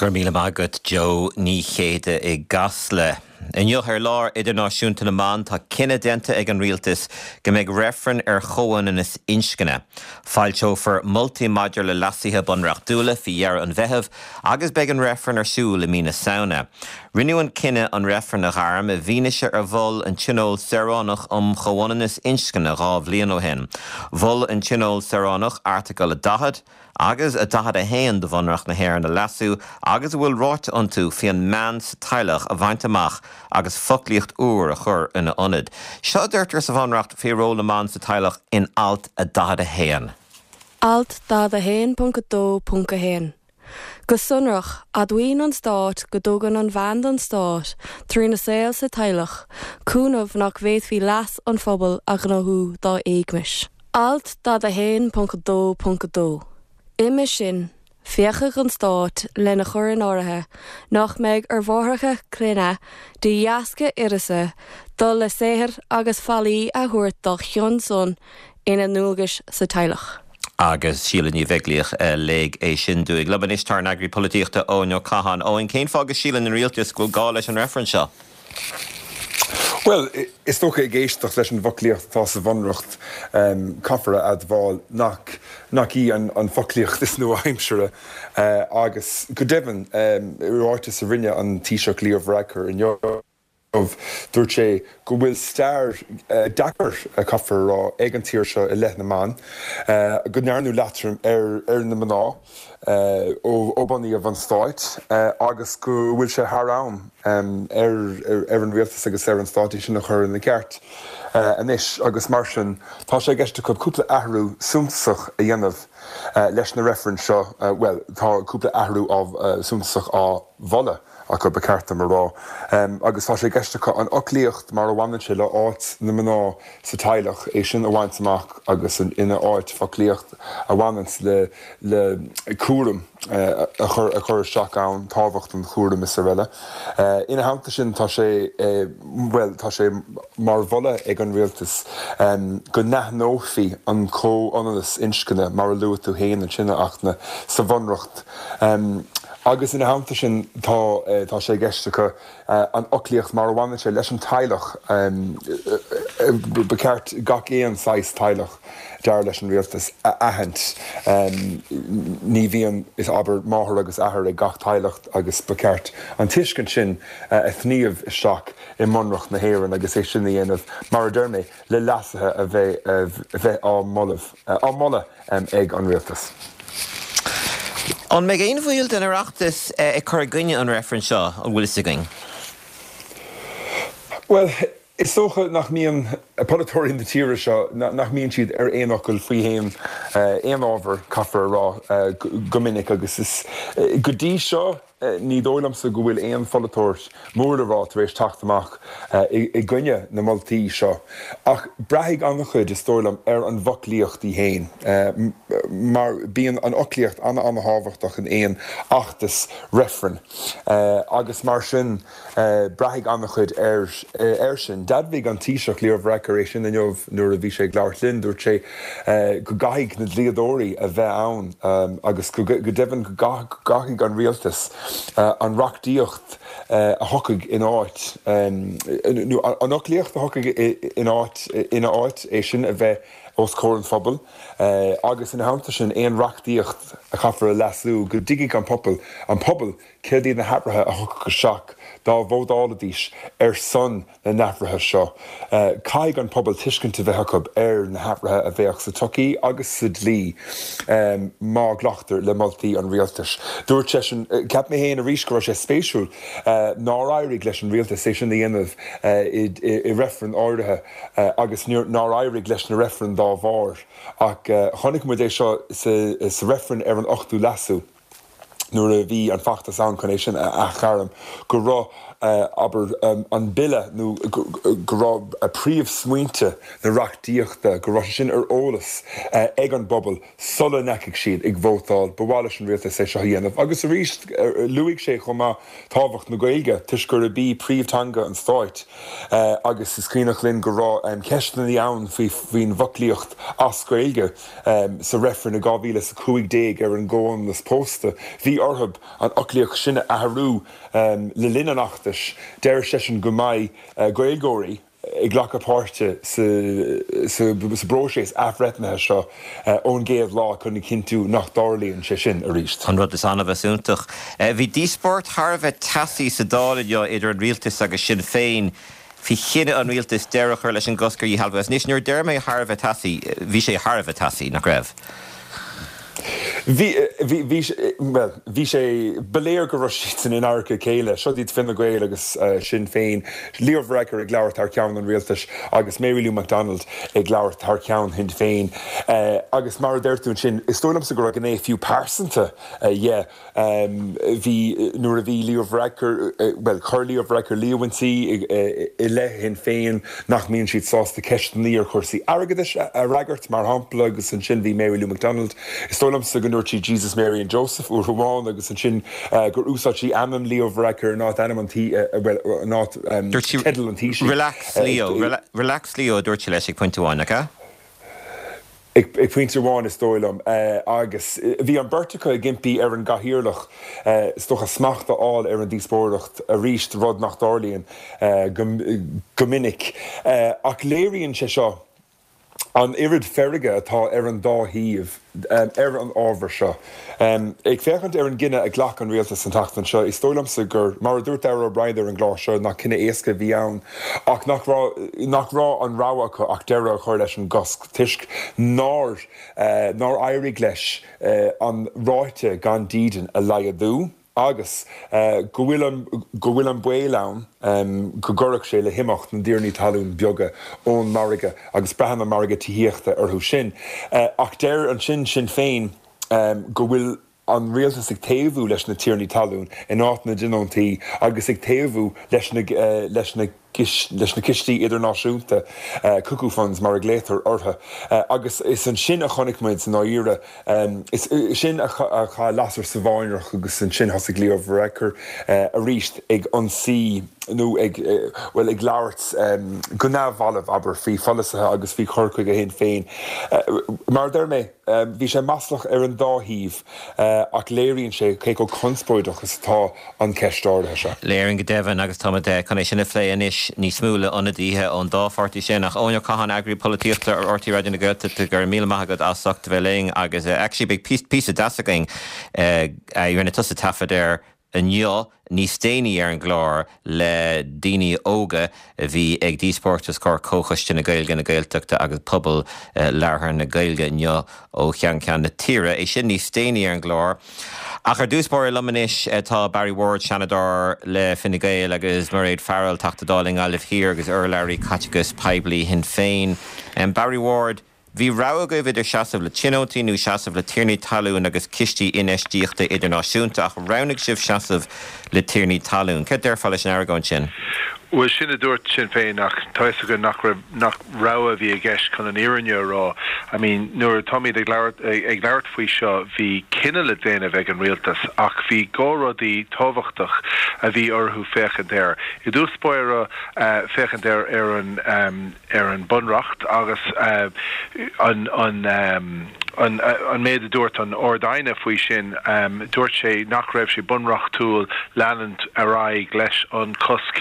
Go raibh míle maith agat Joe Ní Chéide i gCasla. Inniu ar Lá Idirnáisiúnta na mBan tá cinneadh déanta ag an Rialtas go mbeidh reifreann ar chomhionannas inscne. Foilseofar moltaí maidir le leasuithe bunreachtúla faoi dheireadh an Mheithimh agus beidh an reifreann ar siúl i mí na Samhna. Rinneadh an cinneadh an reifreann a ghairm i bhfianaise ar mhol an Tionól Saoránach um Chomhionannas Inscne 2 bhliain ó shin. Mhol an Tionól Saoránach Airteagal 40 agus 41 de Bhunreacht na hÉireann a leasú agus a bhfuil ráite iontu faoi an mbean sa teaghlach a bhaint amach agus foclaíocht úr a chur ina ionad. Seo a deirtear sa Bhunreacht faoi ról na mban sa teaghlach in Alt 41. Alt 41.2.1 Go sonrach, admhaíonn an Stát go dtugann an bhean don Stát, trína saol sa teaghlach, cúnamh nach bhféadfaí leas an phobail a ghnóthú dá éagmais. Alt 41.2.2 Uime sin, féachfaidh an Stát lena chur in áirithe nach mbeidh ar mháithreacha clainne, de dheasca uireasa, dul le saothar agus faillí a thabhairt dá chionn san ina ndualgais sa teaghlach. Agus Síle Ní Bheaglaoich a léigh é sin dúinn. Liom anois tá ár n-eagraí polaitíochta Eoin Ó Catháin. Eoin, cén fáth go síleann an rialtas go bhfuil gá leis an reifreann seo? Bhuel, is dócha ag éisteacht leis an bhfoclaíocht atá sa Bhunreacht, caithfear a admháil nach nach í an foclaíocht is nua-aimsire agus go deimhin, i ráiteas a rinne an Taoiseach Leo Varadkar inniu, dúirt sé go bhfuil stair deacair, caithfear a rá, ag an tír seo i leith na mban, go ndearnadh leatrom ar na mná ó bunaíodh an stát agus go bhfuil sé thar am ar an rialtas agus ar an stát é sin a chur ina cheart anois agus mar sin tá sé i gceist acu cúpla athrú suntasach a dhéanamh leis na reifrinn seo, bhuel tá cúpla athrú suntasach á mholadh acu, ba cheart dom a rá. Agus tá sé i gceist acu an fhoclaíocht mar a bhaineann sé le áit na mná sa teaghlach, é sin a bhaint amach agus ina áit foclaíocht a bhaineanns le le cúram a chur a chur isteach ann, tábhacht an chúraim is araile. Ina theannta sin tá sé, bhuel, tá sé mar mholadh ag an rialtas go n-aithneofaí an comhionannas inscne mar a luaigh tú féin ansin, a Fhachtna, sa Bhunreacht. Agus ina theannta sin tá tá sé i gceist acu an fhoclaíocht mar a bhaineann sé leis an teaghlach, ba cheart gach aon saghas teaghlach, dar leis an rialtas, a aithint. Ní bhíonn, is abair, máthair agus athair ag gach teaghlach agus ba cheart an tuiscint sin a shníomh isteach i mBunreacht na hÉireann agus é sin a dhéanamh, mar a deir mé, le leasuithe a bheith á moladh. Á moladh ag an rialtas. An mbeidh aon bhaill den Oireachtas ag cur i gcoinne an reifrinn seo, an bhfuil fhios againn? Bhuel, is dócha nach mbíonn polaiteoirí na tíre seo, nach mbíonn siad ar aon fhocal faoi aon aon ábhar, caithfear a rá, go minic agus is go dtí seo, Ní dóigh liomsa go bhfuil aon pholaiteoir mór le rá tar éis teacht amach i gcoinne na moltaí seo. Ach braithfidh an-chuid, is dóigh liom, ar an bhfoclaíocht í féin. Mar bíonn an fhoclaíocht an-an-thábhachtach in aon fheachtas reifrinn. Agus mar sin. Braithfidh an-chuid air sin. D'admhaigh an Taoiseach Leo Varadkar é sin inniu nuair a bhí sé ag labhairt linn. Dúirt sé go gcaithfidh na dlíodóirí a bheith ann agus go deimhin go gcaithfidh an rialtas an reachtaíocht a thiocfaidh in áit, nó an fhoclaíocht a thiocfaidh in áit, ina áit, é sin a bheith os comhair an phobail agus ina theannta sin aon reachtaíocht a chaithfear a leasú go dtuigfidh an pobal an pobal Céard iad na hathruithe a thiocfadh isteach dá vótálfaidís ar son na n-athruithe seo? Caithfidh an pobal tuiscint a bheith acu ar na hathruithe a bheadh sa tsochaí agus sa dlí má ghlactar le moltaí an rialtais. Dúirt seisean, Cheap mé féin arís go raibh sé spéisiúil nár éirigh leis an rialtas é sin a dhéanamh i reifreann áirithe agus nár éirigh leis na reifrinn dá bharr. Ach chonaic muid é seo sa reifreann ar an ochtú leasú. nuair a bhí an feachtas ann chun é sin a athghairm, go raibh. abair, an bille nó go raibh príomhsmaointe na reachtaíochta, go raibh sé sin ar eolas ag an bpobal sula ndeachaigh siad ag vótáil. Ba mhaith leis an rialtas é seo a dhéanamh. Agus arís, luaigh sé chomh maith tábhacht na Gaeilge toisc gurb í príomhtheanga an stáit agus is cuimhneach linn go raibh ceisteanna ann faoin bhfoclaíocht as Gaeilge sa reifreann i 2015 ar an gcomhionannas pósta. Bhí orthu an fhoclaíocht sin a athrú le linn an fheachtais. Deir seisean go mbeidh Gaeilgeoirí ag glacadh páirte sa bpróiseas athbhreithnithe seo ón gcéad lá chun a chinntiú nach dtarlaíonn sé sin arís. An rud is annamh is iontach. Bhí díospóireacht thar a bheith teasaí sa Dáil inniu idir an rialtas agus Sinn Féin faoi chinneadh an rialtais deireadh a chur leis an gcosc ar dhíshealbhú. Agus anois, nuair a deir mé thar a bheith teasaí, bhí sé thar a bheith teasaí, nach raibh? Bhí, bhí, bhí, bhuel, bhí sé, ba léir go raibh siadsan in adharca a chéile. Seo iad Fine Gael agus Sinn Féin, Leo Varadkar ag labhairt thar ceann an rialtais agus Mary Lou McDonald ag labhairt thar ceann Shinn Féin. Agus mar a deir tú ansin, is dóigh liomsa go raibh gné fiú pearsanta dhe. Bhí, nuair a bhí Leo Varadkar, bhuel, chuir Leo Varadkar líomhaintí i leith Shinn Féin nach mbíonn siad sásta ceisteanna ar chúrsaí airgeadais a fhreagairt, mar shampla, agus ansin bhí Mary Lou McDonald, is dóigh liomsa go ndúirt sí Jesus, Mary and Joseph uair amháin agus ansin gur úsáid sí ainm Leo Varadkar in áit ainm an tí, bhuel, in áit teideal an Taoisigh. Relax Leo, relax Leo a dúirt sí leis ag pointe amháin, nach ea? Ag pointe amháin, is dóigh liom, agus bhí an bheirt acu ag impí ar an gCathaoirleach, is dócha, smacht a fháil ar an díospóireacht arís, rud nach dtarlaíonn go minic. Ach léiríonn sé seo an oiread feirge atá ar an dá thaobh ar an ábhar seo. Ag féachaint ar an gcinneadh a ghlac an rialtas an tseachtain seo, is dóigh liomsa gur, mar a dúirt Darragh O'Brien ar an gclár seo, nach cinneadh éasca a bhí ann ach nach raibh, nach raibh an rogha acu ach deireadh a chur leis an gcosc toisc nár, nár éirigh leis an ráta gan dídean a laghdú agus go bhfuil an, go bhfuil an baol ann go gcuirfeadh sé le himeacht na dtiarnaí talún beaga ón margadh agus braitheann an margadh tithíochta orthu sin. Ach deir ansin Sinn Féin go bhfuil an rialtas ag taobhú leis na tiarnaí talún in áit na dtionóntaí agus ag taobhú leis na leis na leis na cistí idirnáisiúnta, cuckoo funds mar a ghlaotar orthu. Agus is ansin a chonaic muid i ndáiríre, is sin a chaith lasair sa bháinearach agus ansin thosaigh Leo Varadkar arís ag ionsaí nó ag, bhuel, ag labhairt go neamhbhalbh, abair, faoi pholasaithe agus faoi chur chuige Shinn Féin. Mar a deir mé, bhí sé maslach ar an dá thaobh ach léiríonn sé cé chomh conspóideach is atá an cheist áirithe seo. Léiríonn go deimhin agus táimid chun é sin a phlé anois níos mó le ionadaithe ón dá pháirtí sin. Ach Eoin Ó Catháin, Eagraí Polaitíochta ar RTÉ Raidió na Gaeltachta, go raibh míle maith agat as ucht a bheith linn agus actually beidh píosa deas againn a rinne tusa taifead air inniu níos déanaí ar an gclár le daoine óga a bhí ag díospóireacht os comhair Comhchoiste na Gaeilge, na Gaeltachta agus Pobal Labhartha na Gaeilge inniu ó cheann ceann na tíre. É sin níos déanaí ar an gclár. Ach ar dtús báire liom anois tá Barry Ward, Seanadóir le Fine Gael agus Mairéad Farrell, Teachta Dála i nGaillimh Thiar agus urlabhraí caiteachais poiblí Shinn Féin. Barry Ward, Bhí rogha agaibh idir seasamh le tionóntaí nó seasamh le tiarnaí talún agus cistí infheistíochta idirnáisiúnta, ach roghnaigh sibh seasamh le tiarnaí talún. Céard déarfá leis an argóint sin? Bhuel, sin a dúirt Sinn Féin ach tá fhios againn nach raibh, nach rogha a bhí i gceist chun an fhírinne a rá. I mean, nuair atáimid ag labhairt, ag labhairt faoi seo, bhí cinneadh le déanamh ag an rialtas ach bhí dhá rudaí tábhachtach a bhí orthu féachaint air. I dtús báire, féachaint ar, ar an, ar an Bunreacht agus an an méid a dúirt an Ard-Aighne faoi sin, dúirt sé nach raibh sé bunreachtúil leanúint ar aghaidh leis an cosc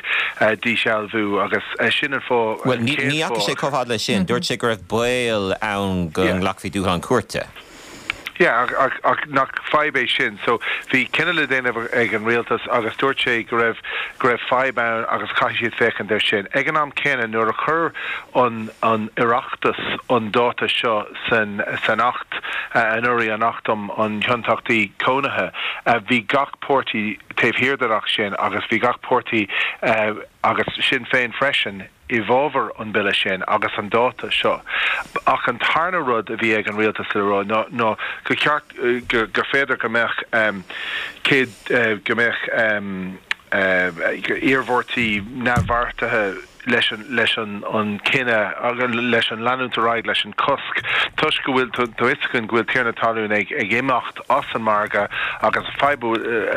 díshealbhú agus sin an fáth, Bhuel, ní dheachaigh sé chomh fada leis sin. Dúirt sé go raibh baol ann go nglacfaí dúshlán cúirte. Yeah, ach, ach nach fadhb é sin? So, bhí cinneadh le déanamh ag an rialtas agus dúirt sé go raibh, go raibh fadhb ann agus caithfidh siad féachaint air sin. Ag an am céanna, nuair a chuir an, an Oireachtas an dáta seo san, san Acht anuraidh, an Acht um an Thionóntachtaí Cónaithe, bhí gach páirtí taobh thiar den Acht sin agus bhí gach páirtí, agus Sinn Féin freisin, i bhfabhar an bille sin agus an dáta seo. Ach an tarna rud a bhí ag an rialtas le rá ná ná gur cheart gur féidir go mbeadh 100 go mbeadh. iarmhairtí neamhbheartaithe leis an leis an an cinneadh agus leis an leanúint ar aghaidh leis an cosc toisc go bhfuil tá fhios againn go bhfuil tiarnaí talún ag ag imeacht as an margadh agus an fadhb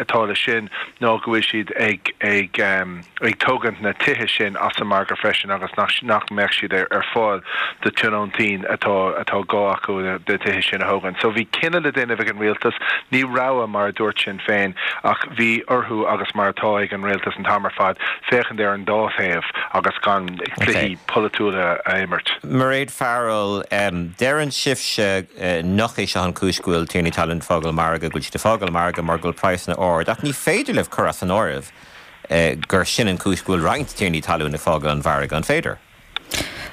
atá leis sin ná go bhfuil siad ag ag ag tógaint na tithe sin as an margadh freisin agus nach nach mbeadh siad ar ar fáil do tionóntaí atá atá gá acu na tithe sin a thógaint. So bhí cinneadh le déanamh ag an rialtas, ní rogha mar a dúirt Sinn Féin ach bhí orthu agus mar atá ag an rialtas an t-am ar fad féachaint ar an dá thaobh agus gan cluichí polaitiúla a imirt. Mairéad Farrell, Deireann sibhse nach é seo an chúis go bhfuil tiarnaí talún ag fágáil an margadh, go bhfuil siad ag fágáil an margadh mar go bhfuil praghsanna ard, ach ní féidir libh cur as an áireamh gur sin an chúis go bhfuil roinnt tiarnaí talún ag fágáil an mhargaidh, an féidir?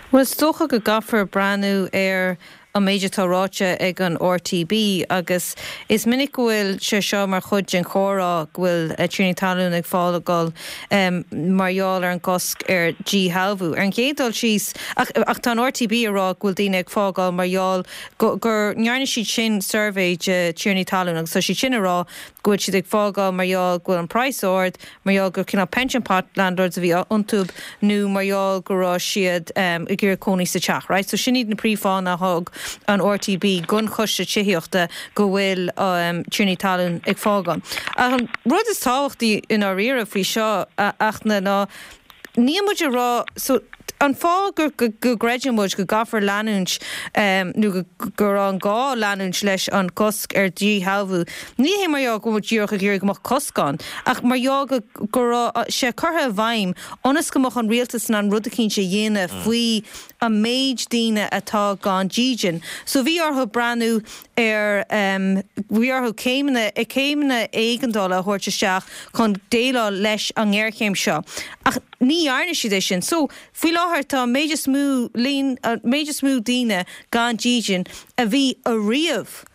Bhuel, is dócha go gcaithfear breathnú ar an méid atá ráite ag an RTB agus is minic go bhfuil sé seo mar chuid den chomhrá go bhfuil tiarnaí talún ag fágáil mar gheall ar an gcosc ar dhíshealbhú. Ar an gcéad dul síos, ach ach tá an RTB ag rá go bhfuil daoine ag fágáil mar gheall go gur ndearna siad sin suirbhé de tiarnaí talún agus tá siad sin ag rá go bhfuil siad ag fágáil mar gheall go bhfuil an praghas ard, mar gheall gur cineál pension pot landlords a bhí iontu nó mar gheall go raibh siad ag iarraidh cónaí sa teach, right? So sin iad na príomhfháthanna a thug an RTB don Choiste Tithíochta go bhfuil tiarnaí talún ag fágáil. Ach an rud is tábhachtaí i ndáiríre faoi seo, a Fhachtna, ná níl muid ag rá, so an fáth go gcreideann muid go gcaithfear leanúint nó go raibh an gá leanúint leis an gcosc ar dhíshealbhú, ní hé mar gheall go bhfuil muid díreach ag iarraidh go mbeadh cosc ann, ach mar gheall go go raibh sé curtha i bhfeidhm ionas go mbeadh an rialtas in ann rud eicínt a dhéanamh faoi an méid daoine atá gan dídean. So bhí orthu breathnú ar bhí orthu céimeanna céimeanna éigeandála a thabhairt isteach chun déileáil leis an ngéarchéim seo. Ach ní dhearna siad é sin. So, faoi láthair tá an méid is mó líon, an méid is mó daoine gan dídean a bhí ariamh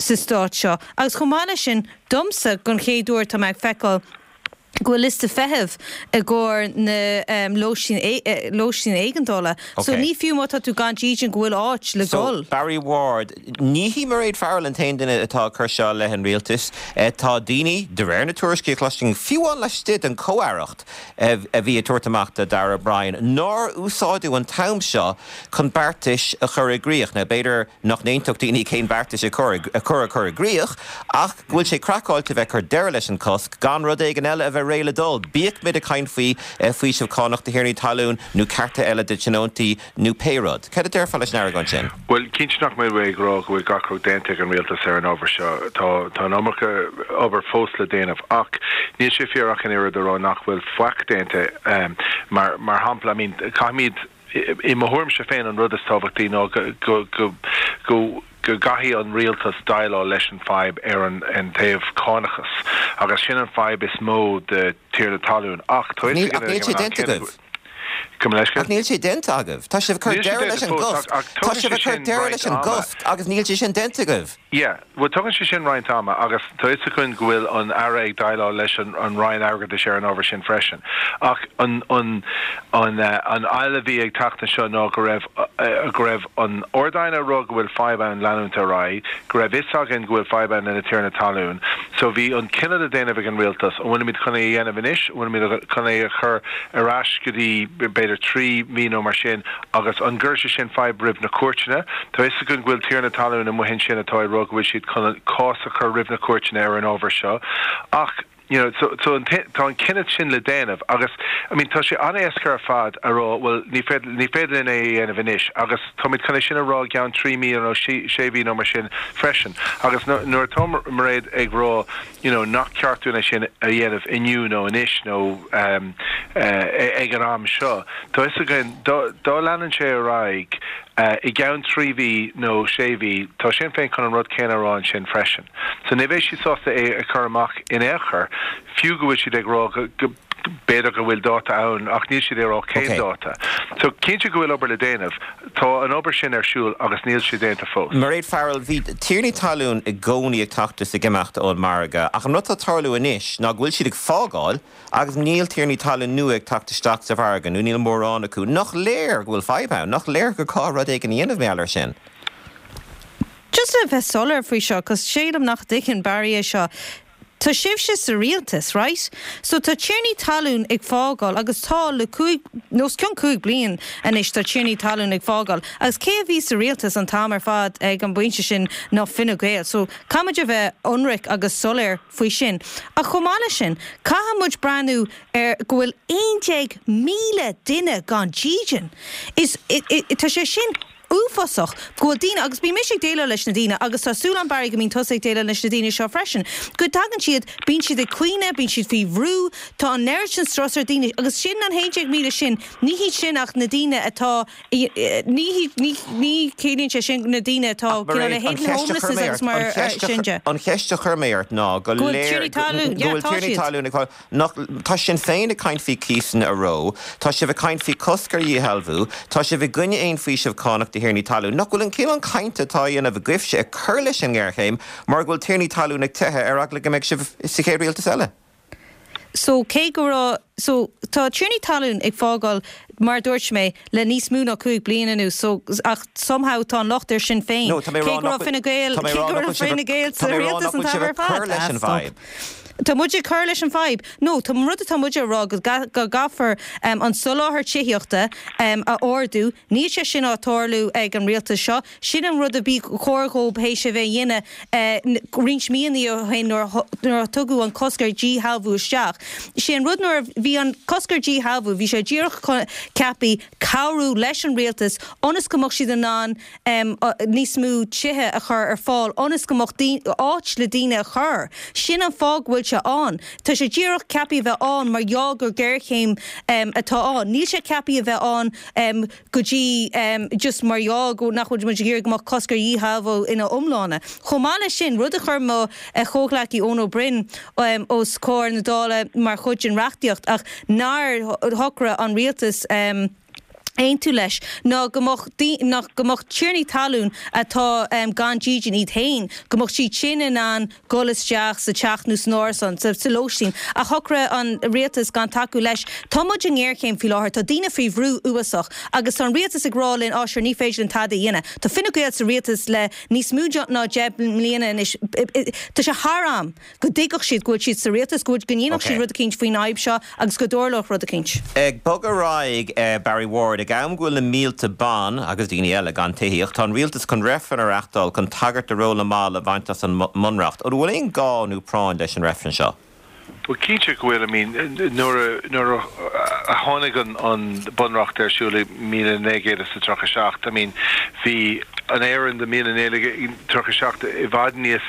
sa stát seo. Agus chomh maith leis sin, domsa, don chéad uair tá mé ag feiceáil go bhfuil liosta feithimh i gcomhair na lóistín lóistín éigeandála. So ní fiú má tá tú gan dídean go bhfuil áit le So, dul. Barry Ward, ní hí Mairéad Farrell an t-aon duine atá ag cur seo i leith an rialtais. Tá daoine, de réir na tuairiscí a chloisinn, fiú amháin laistigh den chomh-aireacht, a bhí ag tabhairt amach do Darragh O'Brien, nár úsáideadh an t-am seo chun beartais a chur i gcrích. Now, b'fhéidir nach n-aontódh daoine cén beartais a chur a chur i gcrích, ach go bhfuil sé craiceáilte a bheith ag cur deireadh leis an cosc gan rud éigin eile a bheith réidh le dul, bíodh muid ag caint faoi faoiseamh cánach do thiarnaí talún nó cearta eile do tionóntaí nó pé rud. Cad a déarfá leis an argóint sin? Bhuel, cinnte nach mbeidh mé ag rá go bhfuil gach rud déanta ag an rialtas ar an ábhar seo. Tá tá an iomarca obair fós le déanamh. Ach níl sé fíor ach an oiread a rá nach bhfuil faic déanta. Mar mar shampla, I mean, caithfimid, I mo thuairimse féin an rud is tábhachtaí ná go go go go go gcaithfidh an rialtas déileáil leis an fadhb ar an an taobh cánachas agus sin an fadhb is mó do tiarnaí talún ach tá Níl ach níl sé déanta agaibh. Gabh mo leithscéal? Ach níl sé déanta agaibh. Tá sibh ag cur deireadh leis an gcosc. Tá sibh ag cur deireadh leis an gcosc agus níl sé sin déanta agaibh. Yeah, bhuel tugann sé sin roinnt ama agus tá fhios againn go bhfuil an Aire ag déileáil leis an an Roinn Airgeadais ar an ábhar sin freisin. Ach an an an an fhaill a bhí ag teacht anseo ná go raibh go raibh an Ard-Aighne ag rá go bhfuil fadhb ann leanúint ar aghaidh, go raibh fhios againn go bhfuil fadhb ann le na tiarnaí talún. So bhí an cinneadh le déanamh ag an Rialtas, an bhfuilimid chun é a dhéanamh anois, an bhfuilimid chun é a chur ar ais go dtí b'fhéidir 3 mhí nó mar sin, Agus an gcuirfidh sé sin fadhb roimh na cúirteanna? Tá fhios againn go bhfuil tiarnaí talún amuigh ansin atá ag rá go bhfuil siad chun cás a chur roimh na cúirteanna ar an ábhar seo. Ach, you know, so, so an, tá an cinneadh sin le déanamh agus, I mean, tá sé an-éasca ar fad a rá, bhuel, ní féidir, ní féidir linn é a dhéanamh anois agus táimid chun é sin a rá i gceann 3 mí nó 6 mhí nó mar sin freisin. Agus nuair atá Mairéad ag rá, you know, nach ceart dúinn é sin a dhéanamh inniu nó anois nó ag an am seo. Tá fhios againn, dá leanann sé ar aghaidh i gceann 3 mhí nó 6 mhí, tá Sinn Féin chun an rud céanna a rá ansin freisin. So ní bheidh siad sásta é a chur amach in aon chor, fiú go bhfuil siad ag rá go b'fhéidir go bhfuil dáta ann ach níl siad ag rá cén dáta. So cinnte go bhfuil obair le déanamh. Tá an obair sin ar siúl agus níl sé déanta fós. Mairéad Farrell, Bhí tiarnaí talún i gcónaí ag teacht is ag imeacht ón margadh ach an rud atá ag tarlú anois ná go bhfuil siad ag fágáil agus níl tiarnaí talún nua ag teacht isteach sa mhargadh nó níl mórán acu. Nach léir go bhfuil fadhb ann? Nach léir gur gá rud éigin a dhéanamh mar gheall air sin? Just le bheith soiléir faoi seo, 'cause sílim nach dtuigeann Barry é seo. Tá sibhse sa rialtas, right? So tá tiarnaí talún ag fágáil agus tá le cúig, nó os cionn 5 bliain anois tá tiarnaí talún ag fágáil agus cé a bhí sa rialtas an t-am ar fad ag an bpointe sin ná Fine Gael. So caithfidh muid a bheith ionraic agus soiléir faoi sin. Ach chomh maith leis sin, caithfidh muid breathnú ar go bhfuil 11,000 duine gan dídean. Is, tá sé sin uafásach go bhfuil daoine, agus bíonn mise ag déileáil leis na daoine agus tá súil agam Barry go mbíonn tusa ag déileáil leis na daoine seo freisin, go dtagann siad, bíonn siad ag caoineadh, bíonn siad faoi bhrú, tá an oiread sin strus ar daoine agus sin an 11,000 sin, ní hiad sin ach na daoine atá, ní hiad, ní, ní chiallaíonn sé sin na daoine atá Ach cineál Mairéad, an hidden cheist a chuir homelessness mé agus ort, mar an cheist a sin de. an cheist a chuir mé ort ná go Go bhfuil léir tiarnaí go talún, yeah bhfuil tá tiarnaí siad. talún ag fáil Nach, tá Sinn Féin ag caint faoi cíosanna a reo, tá sibh ag caint faoi cosc ar dhíshealbhú, tá sibh i gcoinne aon faoiseamh cánach do thiarnaí talún. Nach bhfuil an cineál cainte atá á dhéanamh agaibhse ag cur leis an ngéarchéim mar go bhfuil tiarnaí talún ag teitheadh ar eagla go mbeidh sibh sa chéad rialtas eile? So cé go raibh, so tá tiarnaí talún ag fágáil mar a dúirt mé le níos mó ná 5 bliain anuas so ach somehow tá an locht ar Sinn Féin No, tá mé cé ag rá go nach raibh Fine Gael, tá mé cé ag rá go nach raibh bhfuil sibh Fine Gael tá sa mé ag rá rialtas nach an bhfuil t-am sibh ar ag cur fad. leis Ah an stop. bhfadhb. Tá muid ag cur leis an bhfadhb. No, tá an rud atá muid a rá go gcaithfear an soláthar tithíochta a ardú. Níl sé sin á tarlú ag an rialtas seo. Sin an rud a bhí chóir dhóib théis a bheith a dhéanamh roinnt míonna ó shin nuair a tugadh an cosc ar dhíshealbhú isteach. Sé an rud nuair a bhí an cosc ar dhíshealbhú, bhí sé díreach ceaptha cabhrú leis an rialtas ionas go mbeadh siad in ann níos mó tithe a chur ar fáil ionas go mbeadh áit le daoine a chur. Sin an fáth go bhfuil sé ann. Tá sé díreach ceaptha a bheith ann mar gheall gur géarchéim atá ann. Níl sé ceaptha a bheith ann go dtí just mar gheall go nach bhfuil muid ag iarraidh go mbeadh cosc ar dhíshealbhú ina iomláine. Chomh maith leis sin, rud a chuir mo chomhghleacaí Eoin Ó Broin os comhair na Dála mar chuid den reachtaíocht ach nár shocraigh an rialtas, aontú leis ná go mbeadh ná go mbeadh tiarnaí talún atá gan dídean iad féin, go mbeadh siad sin in ann dul isteach sa teach nó san árasán, sa sa lóistín. Ach shocraigh an rialtas gan tacú leis. Tá muid i ngéarchéim faoi láthair, tá daoine faoi bhrú uafásach agus tá an rialtas ag rá linn á sure ní féidir linn tada a dhéanamh. Tá Fine Gael sa rialtas le níos mó ná 10 mbliana anois. Tá sé thar am. go dtuigfeadh siad go bhfuil siad sa rialtas, go bhfuil, go ndéanfadh siad rud eicínt faoin fhadhb seo agus go dtarlódh rud eicínt. Ag bogadh ar aghaidh, Barry Ward, ag am go bhfuil na mílte ban, agus daoine eile, gan tithíocht, tá an rialtas chun reifreann a reachtáil chun tagairt do ról na mban a bhaint as an mBunreacht. An bhfuil aon gá nó práinn leis an reifreann seo? Bhuel, cinnte go bhfuil. I mean, nuair a, nuair a tháinig an, an Bunreacht ar siúl i 1937, I mean, bhí an Éirinn de 1937 i bhfad níos,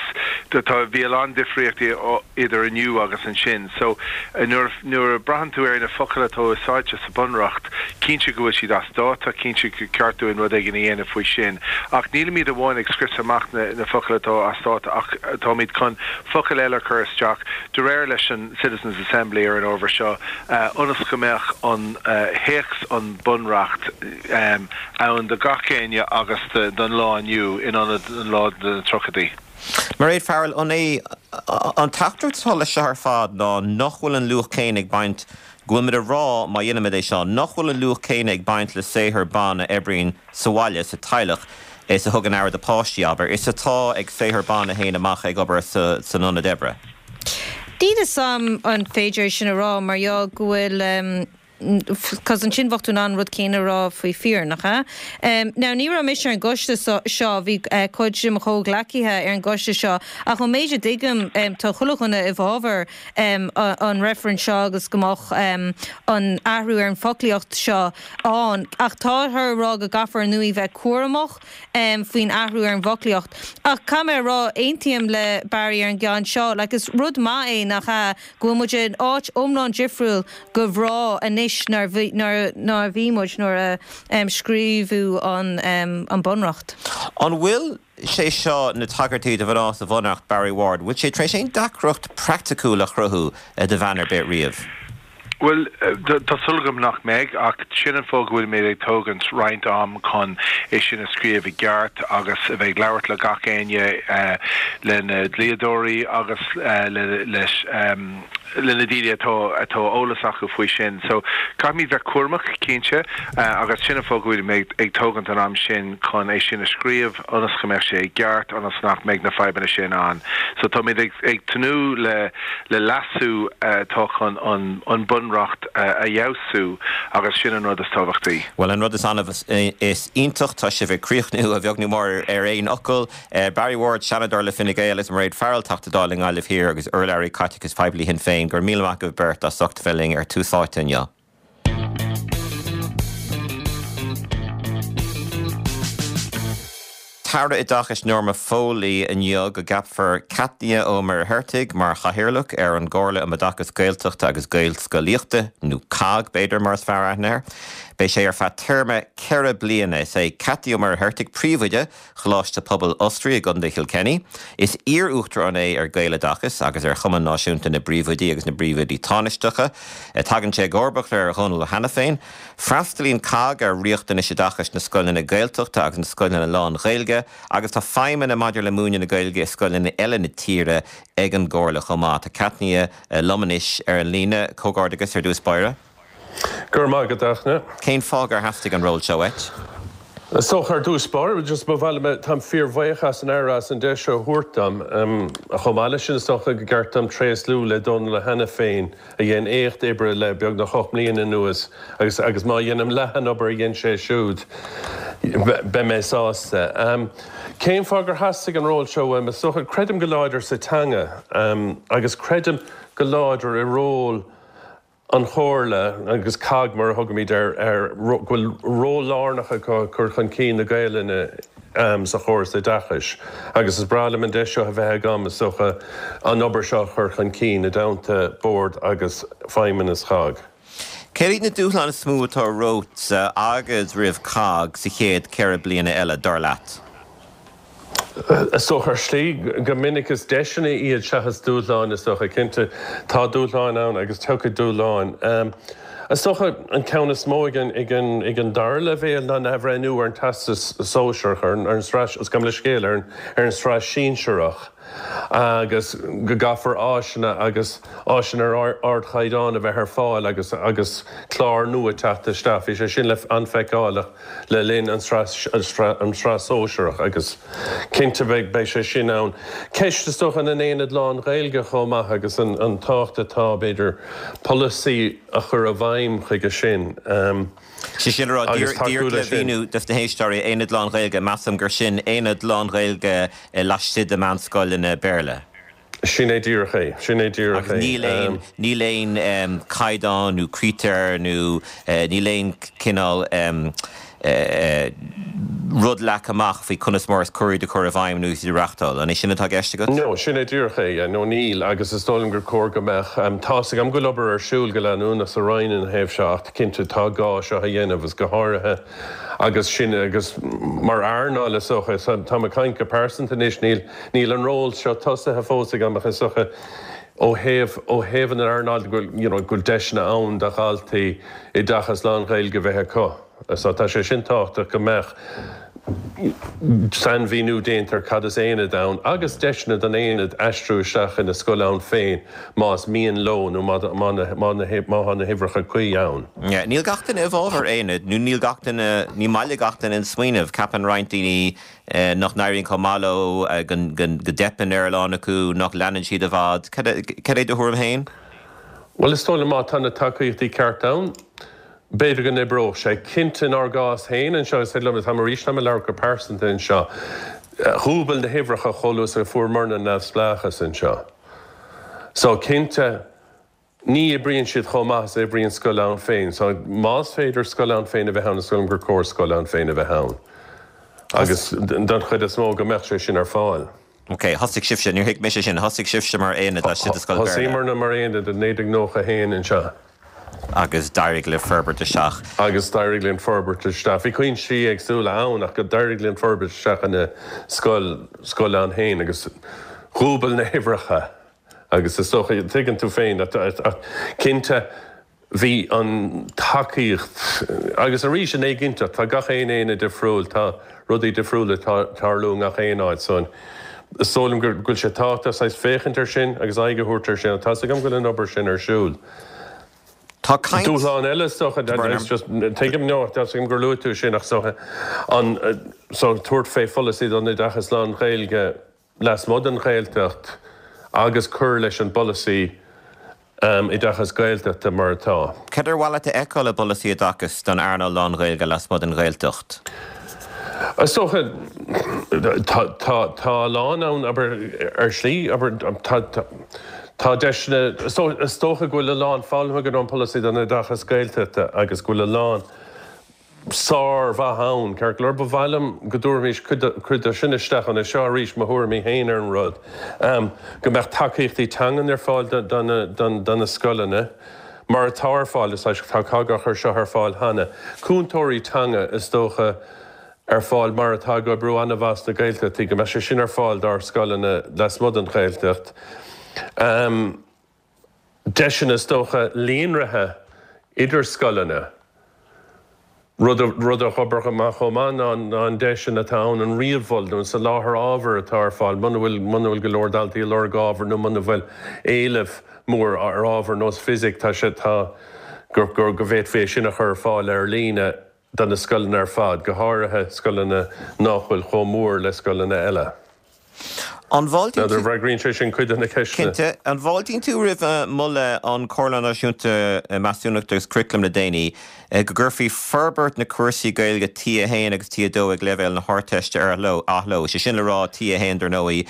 tá, bhí a lán difríochtaí idir inniu agus ansin. So, nuair, nuair a braitheann tú ar na focail atá úsáidte sa Bunreacht, cinnte go bhfuil siad as dáta, cinnte gur ceart dúinn rud éigin a dhéanamh faoi sin. Ach nílimid amháin ag scriosadh amach na, na focail atá as dáta ach táimid chun focail eile a chur isteach de réir leis an Citizens Assembly ar an ábhar seo ionas go mbeadh an théacs an Bunreacht ann do gach éinne agus don lá inniu in ionad an lá de na tríochaidí. Mairéad Farrell, an é an teachtaireacht atá leis seo ar fad ná nach bhfuil an luach céanna ag baint, go bhfuil muid a rá má dhéanaimid é seo, nach bhfuil an luach céanna ag baint le saothar ban a oibríonn sa bhaile, sa teaghlach, is a thugann aire do páistí, abair, is atá ag saothar ban a théann amach ag obair san ionad oibre? Níl fhios a'm an féidir é sin a rá mar gheall go bhfuil, 'cause ansin bheadh tú in ann an rud céanna a rá faoi fir, nach ea? Now ní raibh mise ar an gcoiste seo, bhí cuid de mo chomhghleacaithe ar an gcoiste seo ach ón méid a dtuigim tá chuile dhuine i bhfabhar an reifrinn seo agus go mbeadh an athrú ar an bhfoclaíocht seo ann ach táthar ag rá go gcaithfear ar ndóigh bheith cúramach faoin athrú ar an bhfoclaíocht. Ach caithfidh mé a rá, aontaím le Barry ar an gceann seo, like is rud maith é, nach ea, go bhfuil muid in áit iomlán difriúil go mhná anois ná a bhí muid nuair a scríobhadh an Bunreacht. An bhfuil sé seo, na tagairtí do mhná sa Bhunreacht, Barry Ward, bhfuil sé tar éis aon deacracht praiticiúil a chruthú do bhean ar bith riamh? Bhuel, tá súil agam nach mbeidh, ach sin an fáth go bhfuilimid ag tógaint roinnt am chun é sin a scríobh i gceart agus a bheith ag labhairt le gach éinne, le na dlíodóirí agus leis. le na daoine atá atá eolas acu faoi sin. So caithfimid bheith cúramach, cinnte, agus sin an fáth go bhfuilimid ag tógaint an am sin chun é sin a scríobh ionas go mbeadh sé i gceart, ionas nach mbeidh na fadhbanna sin ann. So táimid ag ag tnúth le le leasú atá chun an an Bunreacht a fheabhsú agus sin an rud is tábhachtaí. Bhuel, an rud is annamh is iontach, tá sibh ag críochnú, a bheag nó mór, ar aon fhocal. Barry Ward, Seanadóir le Fine Gael, agus Mairéad Farrell, Teachta Dála i nGaillimh Thiar agus urlabhraí caiteachais poiblí Shinn Féin, go raibh míle maith agaibh beirt as ucht a bheith linn ar Tús Áite inniu. tAire Oideachais Norma Foley inniu go gceapfar Cathnia Ó Muircheartaigh mar Chathaoirleach ar an gComhairle um Oideachas Gaeltachta agus Gaelscolaíochta, nó COGG b'fhéidir mar is fearr aithne air. Beidh sé ar feadh téarma 4 bliana. Is é Cathnia Ó Muircheartaigh príomhoide Choláiste Pobail Osraí i gContae Kilkenny. Is iar-uachtarán é ar Gaeloideachas agus ar Chumann Náisiúnta na bPríomhoidí agus na bPríomhoidí Tánaisteacha. Tagann sé i gcomharbacht ar Dhónal Ó hAiniféin. Freastalaíonn COGG ar riachtanais oideachais na scoileanna Gaeltachta agus na scoileanna lán-Ghaeilge agus tá feidhmeanna maidir le múineadh na Gaeilge i scoileanna eile na tíre ag an gComhairle chomh maith. Tá Cathnia liom anois ar an líne. Comhghairdeachas ar dtús báire. Go raibh maith agat, a Fhachtna. Cén fáth gur theastaigh an ról seo uait? Is dócha ar dtús báire, just ba mhaith liom, táim fíorbhuíoch as an Aire as an deis seo a thabhairt dom. Chomh maith leis sin, is dócha go gceart dom tréaslú le Dónal Ó hAiniféin a dhein éacht oibre le beagnach 8 mbliana anuas agus agus má dhéanaim leath an obair a dhein sé siúd, beidh mé sásta. Cén fáth gur theastaigh an ról seo uaim? Is dócha, creidim go láidir sa teanga agus creidim go láidir i ról an Chomhairle, agus COGG mar a thugaimid air, go bhfuil ról lárnach acu i gcur chun cinn na Gaelainne sa chóras oideachais agus is breá liom an deis seo a bheith agam, is dócha, an obair seo a chur chun cinn i dteannta Bord agus Feidhmeannas CHOGG. Céard iad na dúshláin is mó atá romhatsa agus roimh COGG sa chéad 4 bliana eile, dar leat? Is dócha, ar shlí, go minic is deiseanna iad seachas dúshláin, is dócha. Cinnte, tá dúshláin ann agus tiocfaidh dúshláin. Is dócha an ceann is mó ag an dara leibhéal ná an athbhreithniú ar an Teastas Sóisearach, ar an tsraith, gabh mo leithscéal, ar an tsraith Sinsearach agus go gcaithfear áiseanna agus áiseanna ar ardchaighdeán a bheith ar fáil agus agus cláir nua teacht isteach. Bhí sé sin le an-fheiceálach. le linn an tsraith sóisearach agus cinnte beidh sé sin ann. Ceist is dócha na n-aonad lán-Ghaeilge chomh maith agus an tábhacht atá, b'fhéidir, polasaí a chur i bhfeidhm chuige sin Sé sin a rá, agus tacú díreach le leis sin. mhíniú dos na héisteoirí, aonad lán-Ghaeilge, measaim gur sin aonad lán-Ghaeilge laistigh de mheánscoileanna Béarla. Sin é díreach é. Sin é díreach Agus é. níl aon, níl aon caighdeán nó critéir nó níl aon cineál rud leagtha amach faoi conas mar is cóir iad a chur i bhfeidhm nó iad a reachtáil. An é sin atá i gceist agat? No, sin é díreach é, yeah. No, níl, agus is dóigh liom gur cóir go mbeadh. Tá's agam go bhfuil obair ar siúl go leanúnach sa Roinn ina thaobh seo ach cinnte tá gá seo a dhéanamh agus go háirithe agus sin agus mar earnáil is dócha, táim ag caint go pearsanta anois, níl, Níl an ról seo tosaithe fós agam ach is dócha ó thaobh, ó thaobh an earnáil go bhfuil, you know, go bhfuil deiseanna ann do dhaltaí oideachas lán-Ghaeilge a bheith acu. So tá sé sin tábhachtach go mbeadh sainmhíniú déanta ar cad is aonad ann agus deiseanna don aonad aistriú isteach ina scoil ann féin más mian leo nó má, má, má, má tá na huimhreacha cuí ann. Yeah, níl gach duine i bhfabhar aonad nó níl gach duine, ní maith le gach duine an smaoineamh. Ceapann roinnt daoine nach n-éiríonn chomh maith leo, go dteipeann ar a lán acu, nach leanann siad i bhfad. Cad é do thuairim féin? Bhuel, is dóigh liom má tá na tacaíochtaí ceart ann, b'fhéidir go n-oibreodh sé. Cinnte, inár gcás féin anseo, is féidir liom, táim arís, táim ag labhairt go pearsanta anseo, dhúbail na huimhreacha chomh luath is a fuaireamarna neamhspleáchas anseo. So, cinnte, Ní oibríonn siad chomh maith is a oibríonn scoil ann féin. So, más féidir scoil ann féin a bheith ann, is dóigh liom gur cóir scoil ann féin a bheith ann. Agus don chuid is mó, go mbeadh sé sin ar fáil. Ok, thosaigh sibhse, níor thuig mise sin, thosaigh sibhse mar aonad laistigh de scoil Béarla. Thosaíomarna mar aonad i 1991 anseo. Agus d'éirigh libh forbairt isteach. Agus d'éirigh linn forbairt isteach. Bhí cúinsí éagsúla ann ach d'éirigh linn forbairt isteach ina scoil, scoil ann féin agus dhúbail na huimhreacha. Agus is dócha, tuigeann tú féin, ach cinnte bhí an tacaíocht, agus arís an éiginnteacht, tá gach aon aonad difriúil, tá rudaí difriúla ag tarlú i ngach aon áit, so. Is dóigh liom go bhfuil sé tábhachtach saghas féachaint air sin agus aghaidh a thabhairt air sin ach tá's agam go bhfuil an obair sin ar siúl. Tá caint. Dúshlán eile is dócha, just tuigim, no, tá's agam gur luaigh tú sin ach is dócha an so tabhairt fé pholasaí don oideachas lán-Ghaeilge lasmuigh den Ghaeltacht agus cur leis an bpolasaí oideachas Gaeltachta mar atá. Cad ar mhaith leat a fheiceáil i bpolasaí oideachais don earnáil lán-Ghaeilge lasmuigh den Ghaeltacht? Is dócha, tá a lán ann, abair, ar shlí, abair, tá, tá deiseanna, is dócha go bhfuil a lán foghlamtha againn ón bpolasaí don oideachas Gaeltachta agus go bhfuil a lán, sármhaith ann. Ceart go leor, ba mhaith liom go dtabharfaimis cuid de sin isteach ann. Seo arís mo thuairimí féin ar an rud. Go mbeadh tacaíochtaí teangan ar fáil do na scoileanna, mar atá ar fáil, is tá COGG á chur seo ar fáil cheana. Cúntóirí teanga, is dócha, ar fáil mar atá ag oibriú an-mhaith sna Gaeltachtaí, go mbeadh sé sin ar fáil dár scoileanna lasmuigh den Ghaeltacht. deiseanna is dócha líonraithe idir scoileanna. Rud a rud a d'oibreodh go maith chomh maith ná ná an deis sin atá ann an ríomh-mhol nó an soláthar ábhair atá ar fáil muna bhfuil muna bhfuil go leor daltaí ag lorg ábhar nó muna bhfuil éileamh mór ar ábhar nós fisic tá sé tá gur gur go bhféadfaí é sin a chur ar fáil ar líne do na scoileanna ar fad, go háirithe scoileanna nách bhfuil chomh mór le scoileanna eile. An bhfáiltíonn tú. N'fheadar an bhfreagraíonn sé sin cuid de na ceisteanna. Cinnte. An bhfáiltíonn tú roimh mholadh an Chomhairle Náisiúnta Measúnachta agus Curaclaim le déanaí go gcuirfí forbairt na cúrsaí Gaeilge T1 agus T2 ag leibhéal na hArdteiste ar athló? Sé sin le rá, T1 dar ndóigh,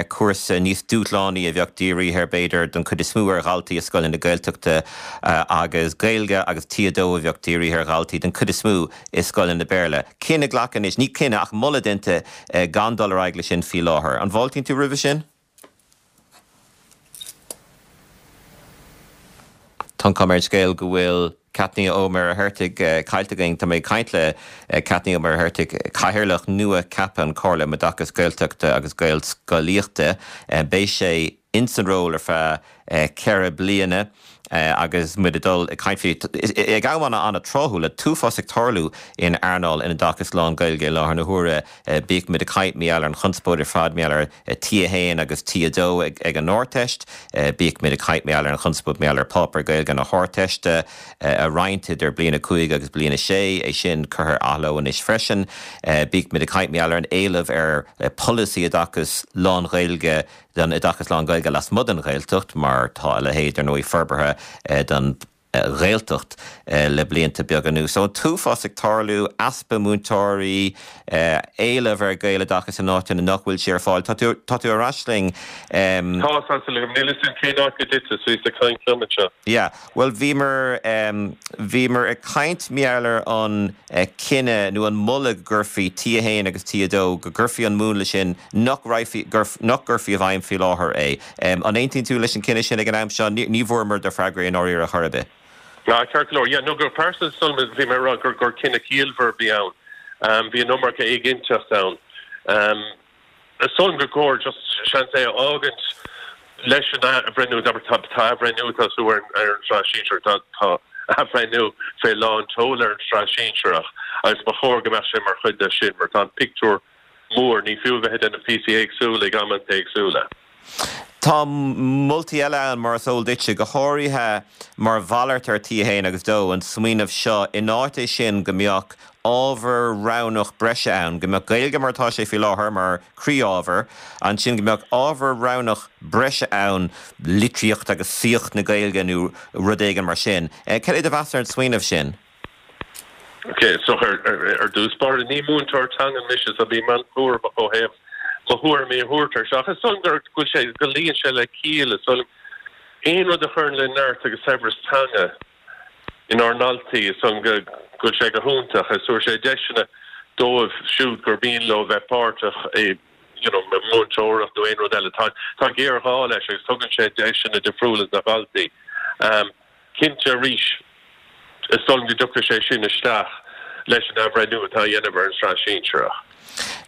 cúrsa níos dúshlánaí a bheadh dírithe b'fhéidir don chuid is mó ar dhaltaí i scoileanna Gaeltachta agus Gaeilge agus T2 a bheadh dírithe ar dhaltaí den chuid is mó i scoileanna Béarla. Cinneadh glactha anois, ní cinneadh ach moladh déanta gan dul ar aghaidh leis sin faoi láthair. An bhfáiltíonn tú roimhe sin? Tá an chuma ar an scéal go bhfuil Cáit Ní Ó Muircheartaigh caillte againn. Tá mé ag caint le Cáit Ní Ó Muircheartaigh, Cathaoirleach nua ceaptha an Chomhairle um Oideachas Gaeltachta agus Gaelscolaíochta. Beidh sé ins an ról ar feadh 4 bliana agus muid ag dul ag caint faoi ag am an-tráthúil le t-uafás ag tarlú in earnáil an oideachais lán-Ghaeilge i láthair na huaire. Bíodh muid ag caint mar gheall ar an chonspóid ar fad mar gheall ar T1 agus T2 ag an Ardteist, bíodh muid ag caint mar gheall ar an chonspóid mar gheall ar pháipéar Gaeilge na hArdteiste a roinnt idir bliain 5 agus bliain 6, é sin curtha ar athló anois freisin. Bíodh muid ag caint mar gheall ar an éileamh ar pholasaí oideachais lán-Ghaeilge don oideachas lán-Ghaeilge lasmuigh den Ghaeltacht, mar tá a leithéid, ar ndóigh, forbartha don Ghaeltacht le blianta beaga anuas. So an t-uafás ag tarlú, easpa múinteoirí, éileamh ar Ghaeloideachas in áiteanna nach bhfuil sé ar fáil. Tá tú, tá tú ar ais linn. Tá, tá súil agam. Níl fhios agam cén áit go dtiteas, bhíos ag caint liom anseo. Yeah. Bhuel, bhíomar, bhíomar ag caint mar gheall ar an cinneadh nó an moladh go gcuirfí T1 agus T2, go gcuirfí an múnla sin, nach raghfaí, nach gcuirfí i bhfeidhm faoi láthair é. An aontaíonn tú leis an cinneadh sin ag an am seo? Ní bhfuaireamar do freagra i ndáiríre chor ar bith. Ah, ceart go leor. Yeah, no, go pearsanta, bhí mé ag rá gur, gur cinneadh ciallmhar a bhí ann. Bhí an iomarca éiginnteacht ann. Is dóigh liom gur chóir just seans é a fhágaint leis an athbhreithniú, abair tá athbhreithniú ag tosú ar an tsraith sinsearach, tá tá athbhreithniú fé lán tseoil ar an tsraith sinsearach agus ba chóir go mbeadh sé mar chuid de sin mar tá an pictiúr mór, ní fiú a bheith ag déanamh píosaí éagsúla ag amanta éagsúla. Tá moltaí eile ann, mar is eol duitse, go háirithe mar mhalairt ar T1 agus 2, an smaoineamh seo, in áit é sin, go mbeadh ábhar roghnach breise ann, go mbeadh Gaeilge mar atá sé faoi láthair, mar chroí-ábhar, ansin go mbeadh ábhar roghnach breise ann, litríocht agus saíocht na Gaeilge nó rud éigin mar sin. Cad é do mheas ar an smaoineamh sin? Ok, so ar dtús báire, ní múinteoir teangan mise so bím an-chúramach ó thaobh mo thuairimí a thabhairt air seo. Ach is dóigh liom go bhfuil sé, go luíonn sé le ciall, is dóigh liom. Aon rud a chuireann le neart agus saibhreas teanga inár ndaltaí, is dóigh liom go bhfuil sé go hiontach. Is tabharfaidh sé deiseanna dóibh siúd gur mian leo bheith páirteach i you know, múinteoireacht nó aon rud eile. Tá, tá géarghá leis agus tugann sé deiseanna difriúla do dhaltaí. Cinnte, arís, is dóigh liom go dtiocfaidh sé sin isteach leis an athbhreithniú atá á dhéanamh ar an tsraith shinsearach.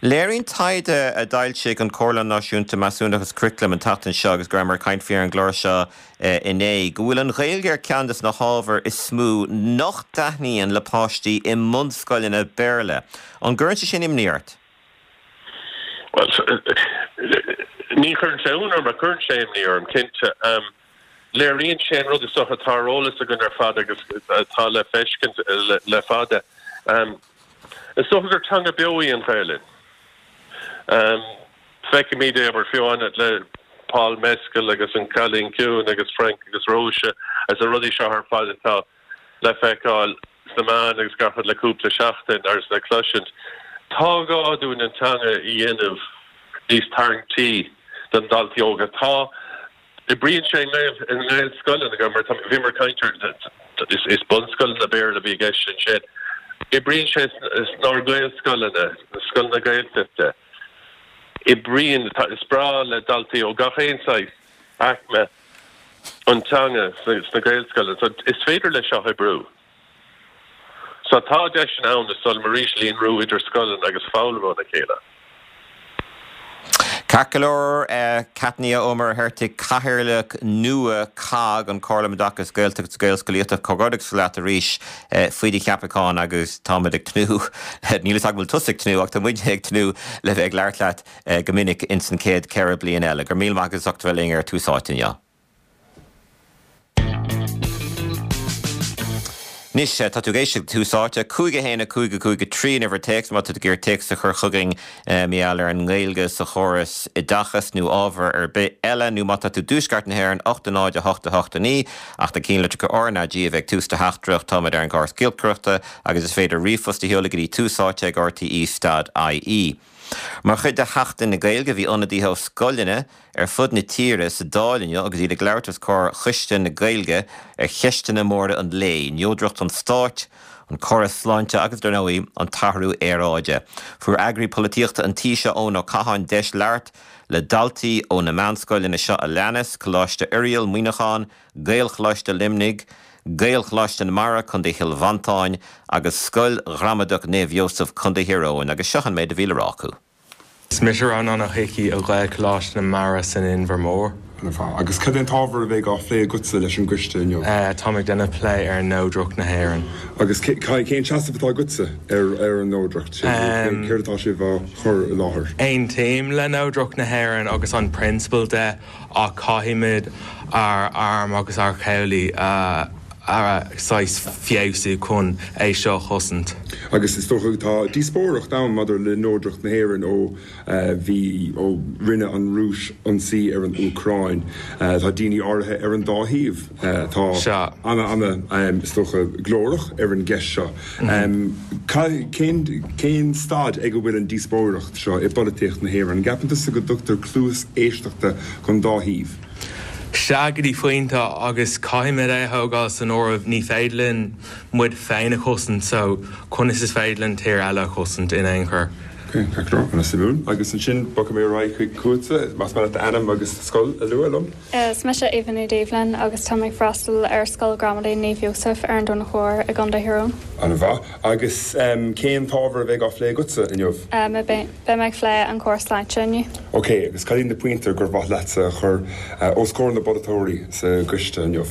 Léiríonn taighde a d'fhoilsigh an Chomhairle Náisiúnta Measúnachta agus Curaclaim an tseachtain seo, agus go rabhamar ag caint faoi ar an gclár seo inné, go bhfuil an Ghaeilge ar cheann de na hábhair is mó nach dtaitníonn le páistí i mbunscoileanna Béarla. An gcuireann sé sin imní ort? Bhuel. Ní chuireann sé ionadh orm, ach cuireann sé imní orm, cinnte. Léiríonn sé an rud is dócha atá ar eolas againn ar fad agus atá le feiscint le fada. Is dócha gur teanga beo í an Ghaelainn. Feicimid é, abair, fiú amháin le Paul Mescal agus An Cailín Ciúin agus Frank agus Róise agus na rudaí seo ar fad atá le feiceáil sna meáin agus gach rud le cúpla seachtain agus le cloisint. Tá gá dúinn an teanga a dhéanamh níos tarraingtí do na daltaí óga. Tá. Oibríonn sé i nGaelscoileanna, mar tá, bhíomar ag caint ar, is bunscoileanna Béarla a bhí i gceist ansin. Oibríonn sé inár nGaelscoileanna, na scoileanna Gaeltachta. Oibríonn, is breá le daltaí ó gach aon saghas aicme an teanga sna Gaelscoileanna. So is féidir leis seo oibriú. So tá deiseanna ann, is dóigh liom arís, líonrú idir scoileanna agus foghlaim óna chéile. Ceart go leor, Cáit Ní Mhuircheartaigh, Cathaoirleach nua COGG, an Comhairle um Oideachas Gaeltachta agus Gaelscolaíochta, comhghairdeachas leat arís faoi do cheapachán agus táimid ag tnúth, níl fhios agam an bhfuil tusa ag tnúth ach tá muidne ag tnúth le bheith ag labhairt leat go minic ins an chéad cheithre bliana eile. Go raibh míle maith agat as ucht a bheith linn ar Tús Áite inniu. Anois, tá tú ag éisteacht le Tús Áite, 5 1 5 5 3 an uimhir téacs má tá tú ag iarraidh téacs a chur chugainn mar gheall ar an nGaeilge sa chóras oideachais nó ábhar ar bith eile, nó má tá tú i dTuaisceart na hÉireann, 8 0 8 8 9, ach na cinnlitreacha R ná G a bheith ag tús do theachtaireacht, táimid ar an gcóras giolcaireachta agus is féidir ríomhphost a sheoladh go dtí túsáite ag rte stad ie. Mar chuid de Sheachtain na Gaeilge, bhí ionadaithe ó scoileanna ar fud na tíre sa Dáil inniu agus iad ag labhairt os comhair Choiste na Gaeilge ar cheisteanna móra an lae, neodracht an stáit, an córas sláinte agus, dar ndóigh, an t-athrú aeráide. Fuair eagraí polaitíochta an tí seo, Eoin Ó Catháin, deis labhairt le daltaí ó na meánscoileanna seo a leanas, Coláiste Oiriall, Muineachán, Gaelcholáiste Luimnigh, Gaelcholáiste na Mara, Co. Chill Mhantáin, agus Scoil Ghramadach Naomh Iósaf, Co. Thír Eoghain, agus seo an méid a bhí le rá acu. Is mise Rónán Ó hIcí ó Ghaelcholáiste na Mara san Inbhear Mór. Ana-mhaith. Agus cad é an t-ábhar a bheidh á phlé agatsa leis an gcoiste inniu? Táim ag déanamh plé ar neodracht na hÉireann. Agus cén seasamh atá agatsa ar an neodracht sin? Céard atá sibh á chur i láthair? Aontaím le neodracht na hÉireann agus an prionsabal de ach caithfimid ár arm agus ár chabhlaigh a saghas feabhsú chun é seo a chosaint. Agus is dócha tá díospóireacht ann maidir le neodracht na hÉireann ó bhí, ó rinne an Rúis ionsaí ar an Úcráin. Tá daoine áirithe ar an dá thaobh atá ana, ana, is dócha, glórach ar an gceist seo. Cén, cén staid ag a bhfuil an díospóireacht seo i bpolaitíocht na hÉireann? An gceapann tusa go dtugtar cluas éisteachta don dá thaobh? Sea, go dtí pointe, agus caithfimid é a thógáil san áireamh, ní féidir linn muid féin a chosaint, so conas is féidir linn tír eile a chosaint in aon chor? Ok, ceart go leor, ana-suimiúil. Agus ansin bogfaidh mé ar aghaidh chuig chugatsa, más maith leat d'ainm agus do scoil a lua liom. Is mise Aoibhe Ní Doibhlin agus tá mé ag freastal ar Scoil Ghramadaí Naomh Iósaf ar an Domhnach Mhór i gContae Thír Eoghain. An-mhaith. Agus cén t-ábhar a bheidh á phlé agatsa inniu? Beidh mé ag plé an córas sláinte inniu. Ok, agus cad iad na pointí gur mhaith leatsa a chur os comhair na bpolaiteoirí sa gcoiste inniu?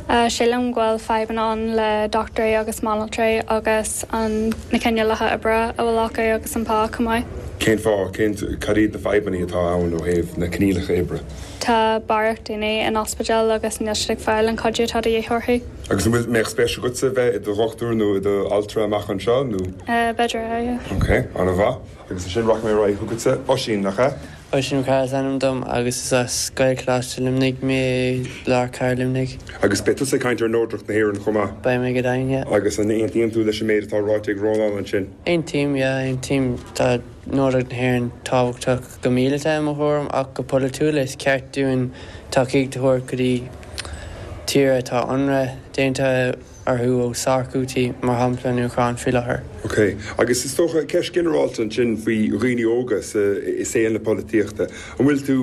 Sílim go bhfuil fadhbanna ann le dochtúirí agus banaltraí agus an na coinníollacha oibre a bhfuil acu agus an pá chomh maith. Cén fáth? Cén, cad iad na fadhbanna atá ann ó thaobh na coinníollacha oibre? Tá barraíocht daoine in ospidéal agus níl siad ag fáil an cuidiú atá de dhíth orthu. Agus an bhfuil, mbeadh spéis agatsa bheith i do dhochtúir nó i do altra amach anseo nó? B'fhéidir é, yeah. Ok, an-mhaith. Agus ansin rachaidh mé ar aghaidh chugatsa, Oisín, nach ea? Oisín Mac Cárthaigh is ainm dom agus is as Gaelcholáiste Luimnigh mé i lár cathair Luimnigh. Agus beidh tusa ag caint ar neodracht na hÉireann chomh maith? Beidh mé go deimhin, yeah. Agus an aontaíonn tú leis an méid atá ráite ag Rónán ansin? Aontaím, yeah, aontaím. Tá neodracht na hÉireann tábhachtach. Go míleata i mo thuairim ach go polaitiúil is ceart dúinn tacaíocht a thabhairt go dtí tír atá ionradh déanta orthu ó sárchútaí, mar shampla an Úcráin faoi láthair. Ok. Agus is dócha, ceist ginearálta ansin faoi dhaoine óga sa, i saol na polaitíochta. An bhfuil tú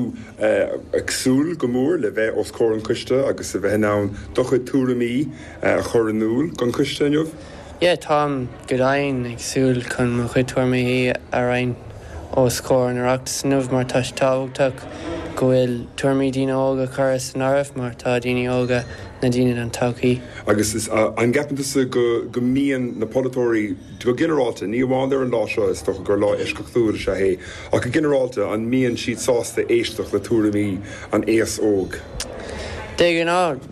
ag súil go mór le bheith os comhair an choiste agus a bheith in ann do chuid tuairimí a chur in iúl don choiste inniu? Yeah, táim go deimhin ag súil chun mo chuid tuairimí a roinnt os comhair an Oireachtais inniu mar tá sé tábhachtach go bhfuil tuairimí daoine óga curtha san áireamh mar tá daoine óga na daoine don todhchaí. Agus an gceapann tusa go go mbíonn na polaiteoirí, go ginearálta, ní amháin ar an lá seo, is dócha gur lá eisceachtúil is ea é, ach go ginearálta, an mbíonn siad sásta éisteacht le tuairimí an aos óg? De ghnáth,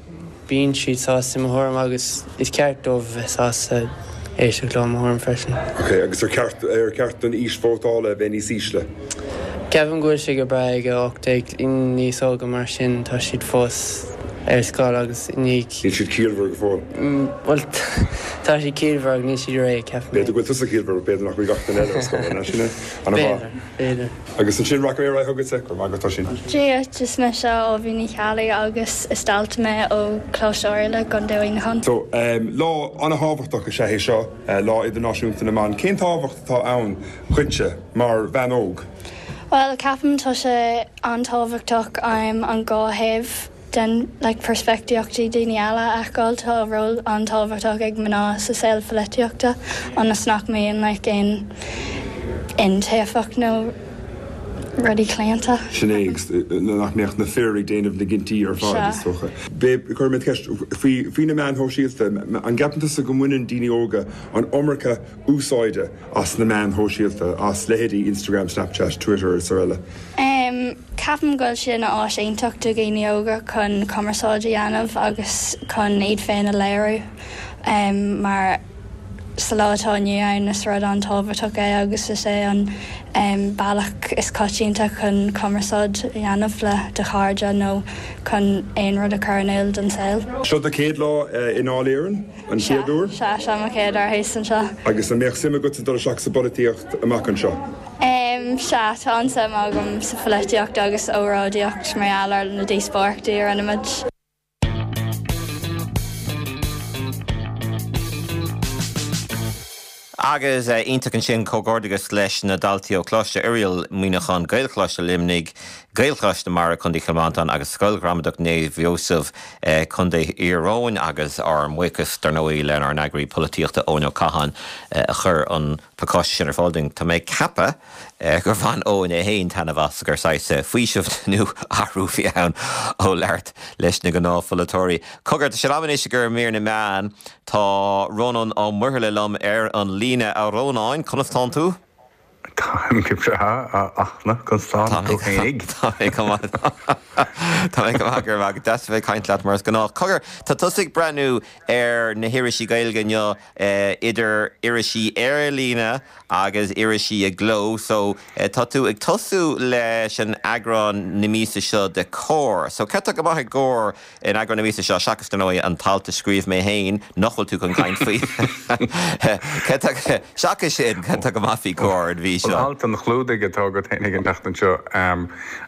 bíonn siad sásta i mo thuairim agus is ceart dóibh a bheith sásta éisteacht leo i mo thuairim freisin. Ok, agus ar cheart, ar cheart don aois vótála a bheith níos ísle? Ceapaim go bhfuil sé go breá ag 18, daoine níos óga mar sin tá siad fós ar scoil agus i ndiaidh. Níl siad ciallmhar go fóill. Bhuel, tá siad ciallmhar ach níl siad réidh, ceapaim. B'fhéidir go bhfuil tusa ciallmhar, ach b'fhéidir nach bhfuil gach duine eile ar scoil, an ea sin é? Ana-mhaith. B'fhéidir, b'fhéidir. Agus ansin rachaidh mé ar aghaidh chugatsa, go raibh maith agat, Oisín. Dia duit, is mise Aoibhinn Ní Cheallaigh agus is dalta mé ó Choláiste Oirialla i gContae Mhuineacháin. So, lá an-thábhachtach is ea é seo, Lá Idirnáisiúnta na mBan. Cén tábhacht atá ann dhuitse mar bhean óg? Bhuel, ceapaim tá sé an-tábhachtach an dá thaobh den like peirspictíochtaí daoine eile a fheiceáil. Tá ról an-tábhachtach ag mná sa saol pholaitíochta ionas nach mbíonn like aon iontaofacht nó rudaí claonta. Sin é, agus nach mbeadh na fir ag déanamh na gcinntí ar fad, is dócha. Cuirfidh mé ceist faoi faoi na meáin shóisialta. An gceapann tusa go mbaineann daoine óga an iomarca úsáide as na meáin shóisialta, as leithéidí Instagram, Snapchat, Twitter is araile? Ceapaim go bhfuil sé ina áis iontach do dhaoine óga chun cumarsáid a dhéanamh agus chun iad féin a léiriú mar sa lá atá inniu ann is rud an-tábhachtach é agus is é an bealach is coitianta chun cumarsáid a dhéanamh le do chairde nó chun aon rud a chur in iúl don saol. Seo do chéad lá i nDáil Éireann, an chéad uair? Sea, seo mo chéad uair thíos anseo. Agus an mbeadh suim agatsa dul isteach sa bpolaitíocht amach anseo? Sea, tá an-suim agam sa pholaitíocht agus óráidíocht mar gheall ar na díospóireachtaí a rinne muid. Agus iontach ansin, comhghairdeachas leis na daltaí ó Choláiste Oiriall, Muineachán, Gaelcholáiste Luimnigh, Gaelcholáiste Mara, Contae Chill Mhantáin agus Scoil Ghramadach Naomh Iósaf, Contae Thír Eoghain agus ár mbuíochas dar ndóigh lenár n-eagraí polaitíochta Eoin Ó Catháin a chuir an pacáiste sin ar fáil dúinn. Tá mé ag ceapadh gur bhain Eoin é féin taitneamh as, gur saghas faoiseamh nó athrú a bhí ann ó labhairt leis na gnáthpholaiteoirí. Cogar, tá sé in am anois i gcomhair mír na meán. Tá Rónán Ó Muirthile liom ar an líne. A Rónáin, conas tánn tú? Táim go breá, a Fhachtna, conas tánn tú féinig? Tá mé go maith. Tá mé go maith, go raibh maith agat. Deas a bheith ag caint leat mar is gnách. Cogar, tá tusa ag breathnú ar na hirisí Gaeilge inniu. idir irisí ar líne agus irisí i gcló. So, tá tú ag tosú leis an eagrán na míosa seo de Comhar. So, cad tá go maith i gComhar in eagrán na míosa seo, seachas, dar ndóigh, an t-alt a scríobh mé féin, nach bhfuil tú chun caint faoi. Cad tá, seachas sin, cad tá go maith faoi Comhar an mhí seo? An alt an chlúdaigh atá agat féinig an tseachtain seo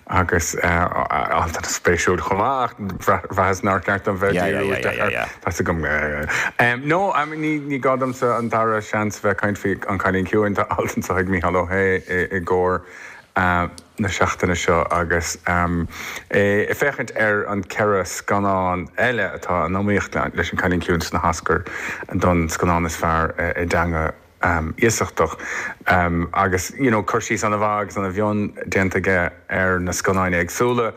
agus alt an-spéisiúil chomh maith ach bhraitheas nár cheart dom bheith ag díriú isteach air. Tá's agam. No, I mean, ní, ní gá domsa an dara seans bheith ag caint faoi An Cailín Ciúin, tá alt anseo ag Mícheál Ó hAodha i gComhar na seachtaine seo agus é ag féachaint ar an 4 scannán eile atá in iomaíocht leis An Cailín Ciúin sna hOscair don scannán is fearr i dteanga iasachtach agus you know cur síos ana-mhaith agus ana-mhion déanta aige ar na scannáin éagsúla.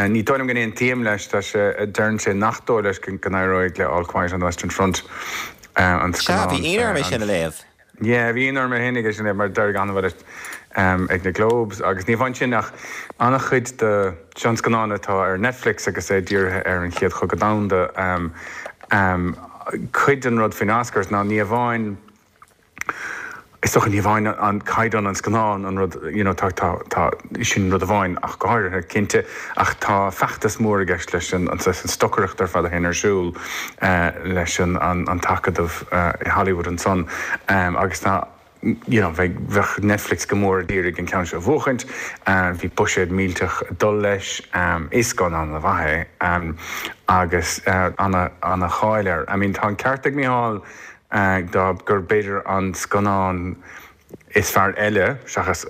Ní dóigh liom go n-aontaím leis, tá sé, deireann sé nach dóigh leis go n-éireoidh le All Quiet on the Western Front an Sea, bhí ionadh orm é sin a léamh. Yeah, bhí ionadh orm féinig é sin a léamh mar d'éirigh an-mhaith leis ag na Globes agus ní amháin sin ach an-chuid de, seo an scannán atá ar Netflix agus é dírithe ar an Chéad Chogadh Domhanda. Cuid den rud faoin Oscars ná ní amháin, is dócha, ní amháin an caighdeán an scannáin an rud, you know, tá, tá, tá, sin rud amháin ach go háirithe, cinnte, ach tá feachtas mór i gceist leis an, an saghas, an stocaireacht ar fad a théann ar siúl leis an, an, an t-acadamh i Hollywood ansan agus tá, you know, bheadh, bheadh Netflix go mór ag iarraidh an ceann seo a bhuachaint. Bhí buiséad millteach ag dul leis. Is scannán ana-mhaith é agus ana, ana-cháil air. I mean, tá an ceart ag Mícheál dá, gur b'fhéidir an scannán is fearr eile seachas,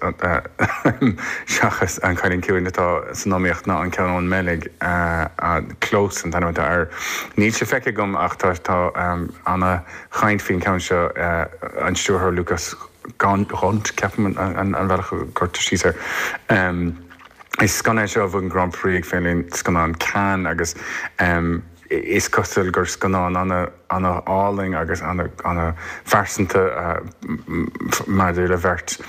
seachas An Cailín Ciúin atá san iomaíocht ná an ceann ón mBeilg, Close an t-ainm atá air. Níl sé feicthe agam ach tá, tá ana, chaint faoin cheann seo, an stiúrthóir Lukas Dhont, ceapaim an bealach a gcuirtear síos air. Is scannán é seo a bhuaigh an Grand Prix ag Féile Scannán Cannes agus. Is cosúil gur scannán ana-álainn agus ana-phearsanta maidir le bheirt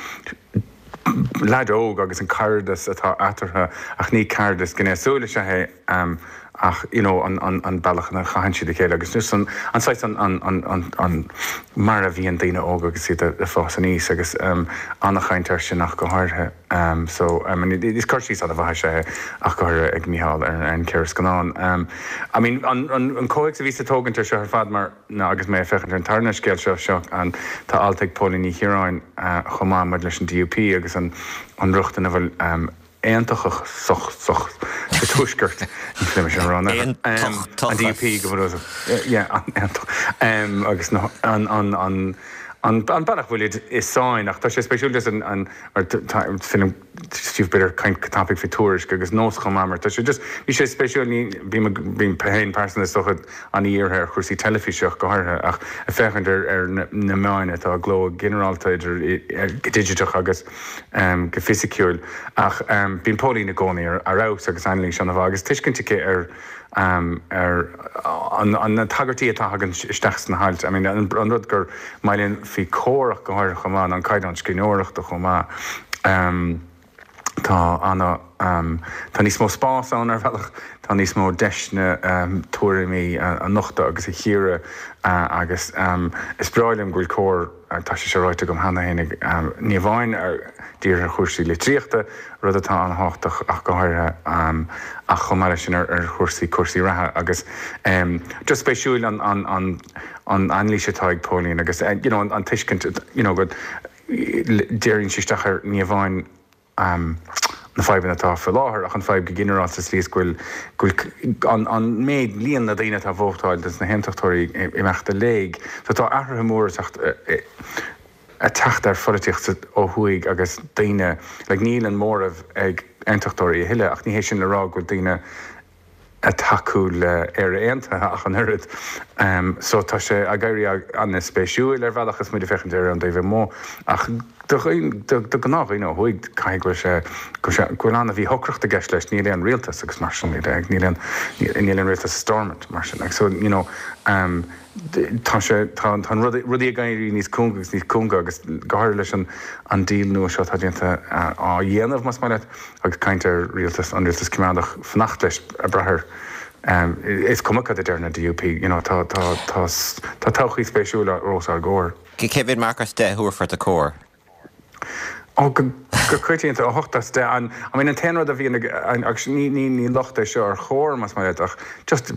leaid óg agus an cairdeas atá eatarthu ach ní cairdeas gnéasúil is ea é ach you know an bealach ina chaitheann siad a chéile agus just an saghas an mar a bhíonn daoine óga agus iad ag fás aníos agus ana-chaint air sin ach go háirithe. So, I mean, is cur síos an-mhaith is ea é ach go háirithe ag Mícheál ar an cheithre scannán. I mean, an comhthéacs a bhíos ag tógaint ar seo ar fad mar ná agus mé ag féachaint ar an tarna scéal seo, seo an, tá alt ag Póilín Ní Chiaráin chomh maith maidir leis an DUP agus an rochtain a bhfuil aontachasach sa Tuaisceart, ní féidir liom sin a rá, an DUP go bunúsach, yeah, aontach, agus an, an, an, an bealach a bhfuilid i sáinn ach tá sé spéisiúil just an, an, mar tá film Steve b'fhéidir caint go tapaidh faoi Tuairisc agus Nós chomh maith mar tá sé just bhí sé spéisiúil ní bím bím féin pearsanta is dócha an-dhírithe ar chúrsaí teilifíse ach go háirithe ach ag féachaint ar ar na meáin atá i gcló ginearálta idir go digiteach agus go fisiciúil ach bíonn Póilín i gcónaí ar fheabhas agus anailís ana-mhaith agus tuiscint aici ar ar na tagairtí atá tagann isteach sna hailt. I mean, an rud gur maith linn faoi Comhar ach go háirithe chomh maith ná an caighdeán scríbhneoireachta chomh maith. Tá ana, tá níos mó spás ann ar bhealach, tá níos mó deiseanna tuairimí a nochtadh agus a chíoradh agus is breá liom go bhfuil Comhar, Tá sé seo ráite agam cheana féin, ní amháin dírithe ar chúrsaí litríochta, rud atá an-thábhachtach ach go háirithe, ach chomh maith leis sin ar chúrsaí cúrsaí reatha agus just spéisiúil an an an anailís atá ag Póilín agus you know an tuiscint you know go díríonn sí isteach ar ní amháin na fadhbanna atá faoi láthair ach an fadhb go ginearálta sa tslí is go bhfuil go bhfuil an an méid líon na daoine atá ag vótáil dos na haontachtóirí ag imeacht i léig. So tá athruithe móra ag teacht ag teacht ar pholaitíocht ó thuaidh agus daoine like níl an móramh ag aontachtóirí a thuilleadh ach ní hé sin le rá go bhfuil daoine ag tacú le Éire Aontaithe ach an oiread. So tá sé ag éirí an-spéisiúil ar bhealach is muid ag féachaint air ón dtaobh amuigh ach do do ghnáthdhaoine ó thuaidh caithfidh go bhfuil sé go bhfuil sé go bhfuil an-mhíshocracht i gceist leis, níl aon rialtas agus mar sin de, níl aon níl aon rialtas i Stormont mar sin like so you know tá sé tá tá an rud rudaí ag éirí níos cúnga agus níos cúnga agus go háirithe leis an an deal nua seo atá déanta á dhéanamh más maith leat. Agus caint ar rialtas, an rialtas coimeádach, fanacht leis, ag brath ar, is cuma cad a deir na DUP, you know, tá, tá, tá, tá todhchaí spéisiúil os ár gcomhair. Cé mhéad marc as 10 a thabharfá do Comhar? Ó, go, go coitianta, 8 as 10. An, I mean, an t-aon rud a bhíonn ag, agus ní, ní, ní locht é seo ar Chomhar, más maith leat, ach just,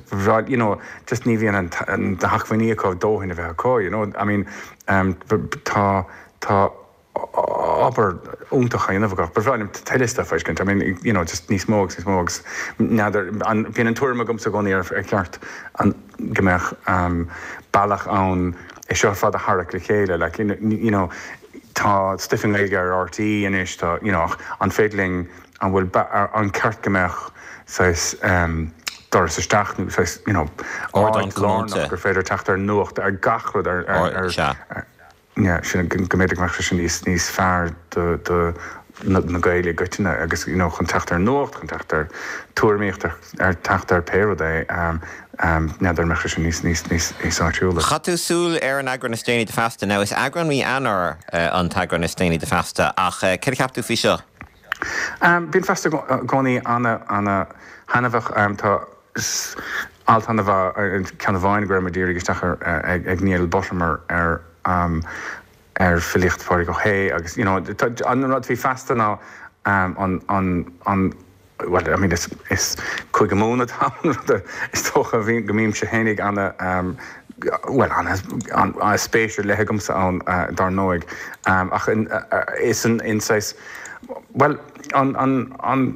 you know, just ní bhíonn an, an, na hacmhainní acu dóthain a bheith acu, you know, I mean, tá, tá, obair iontach á dhéanamh acu. Ba bhreá liom tuilleadh stuif a fheiscint. I mean, you know, just níos mó agus níos mó agus n'fheadar, an, bíonn an tuairim agamsa i gcónaí ar, ar cheart an, go mbeadh bealach ann é seo ar fad a tharrac le chéile. Like, you know, tá stuif i nGaeilge ar RTÉ anois, tá, you know, ach an féidir linn, an bhfuil, an ceart go mbeadh saghas doras isteach nó saghas, you know, áit lárnach gur féidir teacht ar nuacht, ar gach rud, ar, ar, ar, yeah, sin, go mb'fhéidir go mbeadh sé sin níos, níos fearr do, do na, na Gaeil i gcoitinne agus, you know, chun teacht ar nuacht, chun teacht ar tuairimíocht, ar, ar teacht ar pé rud é, n'fheadar an mbeadh sé sin níos, níos, níos, níos áisiúla. Chaith tú súil ar an eagrán is déanaí de Feasta. Now is eagrán mí Eanáir an t-eagrán is déanaí de Feasta ach céard a cheap tú faoi seo? Bíonn Feasta i gcónaí ana, ana thaitneamhach. Tá alt an-mhaith, ceann amháin go raibh mé ag díriú isteach air ag Niall Buttimer ar ar filíocht Phádraig Ó hAodha agus you know an rud faoi Feasta ná an an an bhuel I mean is is Cúige Mumhan atá ann rud is dócha a bhíonn go mbímse fhéinig ana bhuel ana ana spéis ar leith agamsa ann dar ndóigh ach is an in saghas bhuel an an an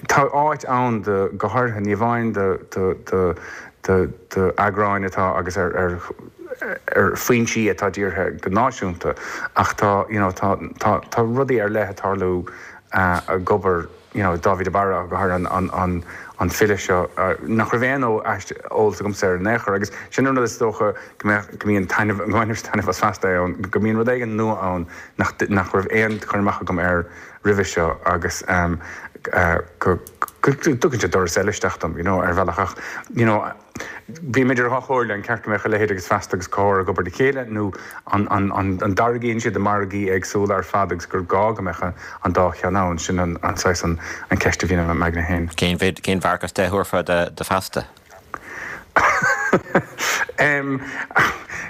Tá áit ann do, go háirithe, ní amháin do, do, do, do, do eagráin atá agus ar, ar, ar foinsí atá dírithe go náisiúnta ach tá, you know, tá, tá, tá rudaí ar leith ag tarlú ag obair, you know, Dáibhí de Barra go háirithe an, an, an, an file seo nach raibh aon eolas agamsa air in aon chor agus sin an rud is dócha go mbeadh, go mbíonn taitneamh, go mbainimse taitneamh as Feasta é ann, go mbíonn rud éigin nua ann nach, nach raibh aon chur amach agam air roimhe seo agus go. Go dtugann sé doras eile isteach dom, you know, ar bhealach ach, you know, bím idir dhá chomhairle, an ceart go mbeadh a leithéid agus Feasta agus Comhar ag obair le chéile nó an, an, an, an dtarraingíonn siad i margaí éagsúla ar fad agus gur gá go mbeadh an dá cheann ann, sin an, an saghas an, an ceist a bhíonn i m'aigne féin. Cén mhéid, cén mharc as 10 a thabharfá do, do Feasta?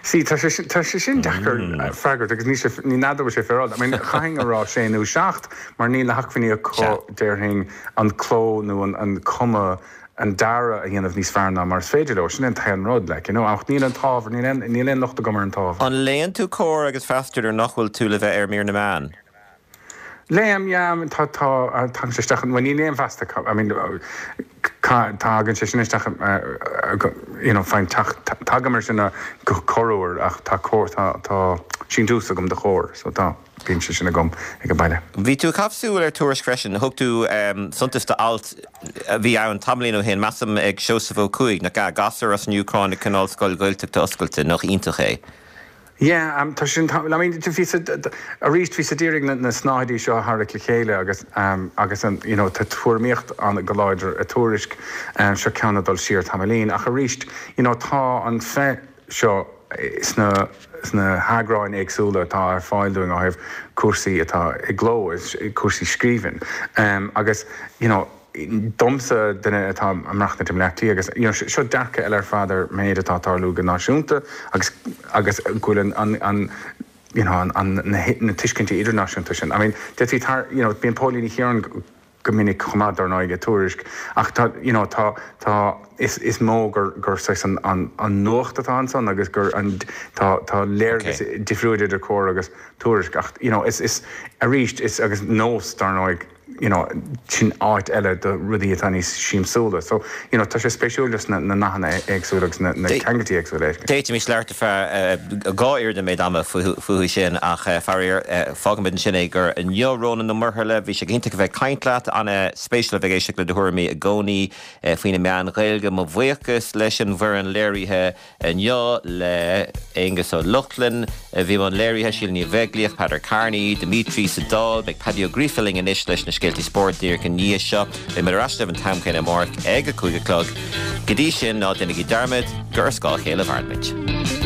See, tá sé sin, tá sé sin deacair freagairt agus níl sé, ní n'fheadar bhfuil sé féaráilte. I mean, chaithfinn a rá sé nó seacht mar níl na hacmhainní acu, déarfainn, an cló nó an, an cuma, an dearadh a dhéanamh níos fearr ná mar is féidir leo. Sin é an t-aon rud, like, you know. Ach níl an t-ábhar, níl aon, níl aon locht agam ar an t-ábhar. An léann tú Comhar agus Feasta nuair nach bhfuil tú le bheith ar mír na meán? Léim, yeah, tá, tá, tagann sé isteach, bhuel ní léim Feasta, I mean, tagann sé sin isteach, you know, fine, tagaim ar sin go corruair ach tá Comhar, tá, tá síntiús agam do Chomhar, so tá, bíonn sé sin agam ag an baile. Bhí tú ag caitheamh súil ar Tuairisc freisin, thug tú suntas do alt a bhí ann tamaillín ó shin, measaim ag Seosamh Ó Cuaig, nach ea, gasúr as an Úcráin ag coinneáil scoil Ghaeltachta oscailte, nach iontach é? Yeah, tá sin, I mean, bhí sa, arís, bhí siad d'iarraidh na, na snáthaidí seo a tharrac le chéile agus, agus an, you know, tá tuairimíocht an go láidir i Tuairisc, seo ceann ag dul siar tamaillín ach arís, you know, tá an feith seo sna, sna heagráin éagsúla atá ar fáil dúinn ó thaobh cúrsaí atá i gcló, cúrsaí scríbhinn, agus, you know, domsa, duine atá ag maireachtaint i mBleá Cliath agus you know seo dearcadh eile ar fad ar méid atá ag tarlú go náisiúnta agus agus go bhfuil an an an you know an an na na tuiscintí idirnáisiúnta sin. I mean d'fhéadfaí tar you know bíonn Póilín Ní Chiaráin go minic chomh maith dar ndóigh i Tuairisc ach tá you know tá tá is is mó gur gur saghas an an an nuacht atá ansan agus gur an tá tá léargas difriúil idir Comhar agus Tuairisc ach you know is is arís is agus Nós dar ndóigh you know, sin áit eile do rudaí atá níos siamsúla. So, you know, tá sé spéisiúil just na nathanna éagsúla agus na ceangailtí éagsúla a fheiscint. D'fhéadfaimis labhairt ar feadh 2 oiread an méid ama fúthu sin ach faraor, fágfaimid ansin é do inniu. Rónán Ó Muirthile, bhí sé go hiontach a bheith ag caint leat. An-spéisiúil a bheith ag éisteacht le do thuairimí i gcónaí faoi na meáin Ghaeilge. Mo bhuíochas leis an bhfoireann léirithe. Inniu le Aonghus Ó Lochlainn a bhí i mbun léirithe, Síle Ní Bheaglaoich, Peadar Kearney, Dimitri sa Dáil. Beidh Paddy Ó Gríofa linn anois leis na scéaltaí spóirt díreach i ndiaidh seo. Beidh muid ar ais libh an t-am céanna amárach ag a 5 a chlog. Go dtí sin, ná déanaigí dearmad gur ar scáth a chéile a mhaireann muid.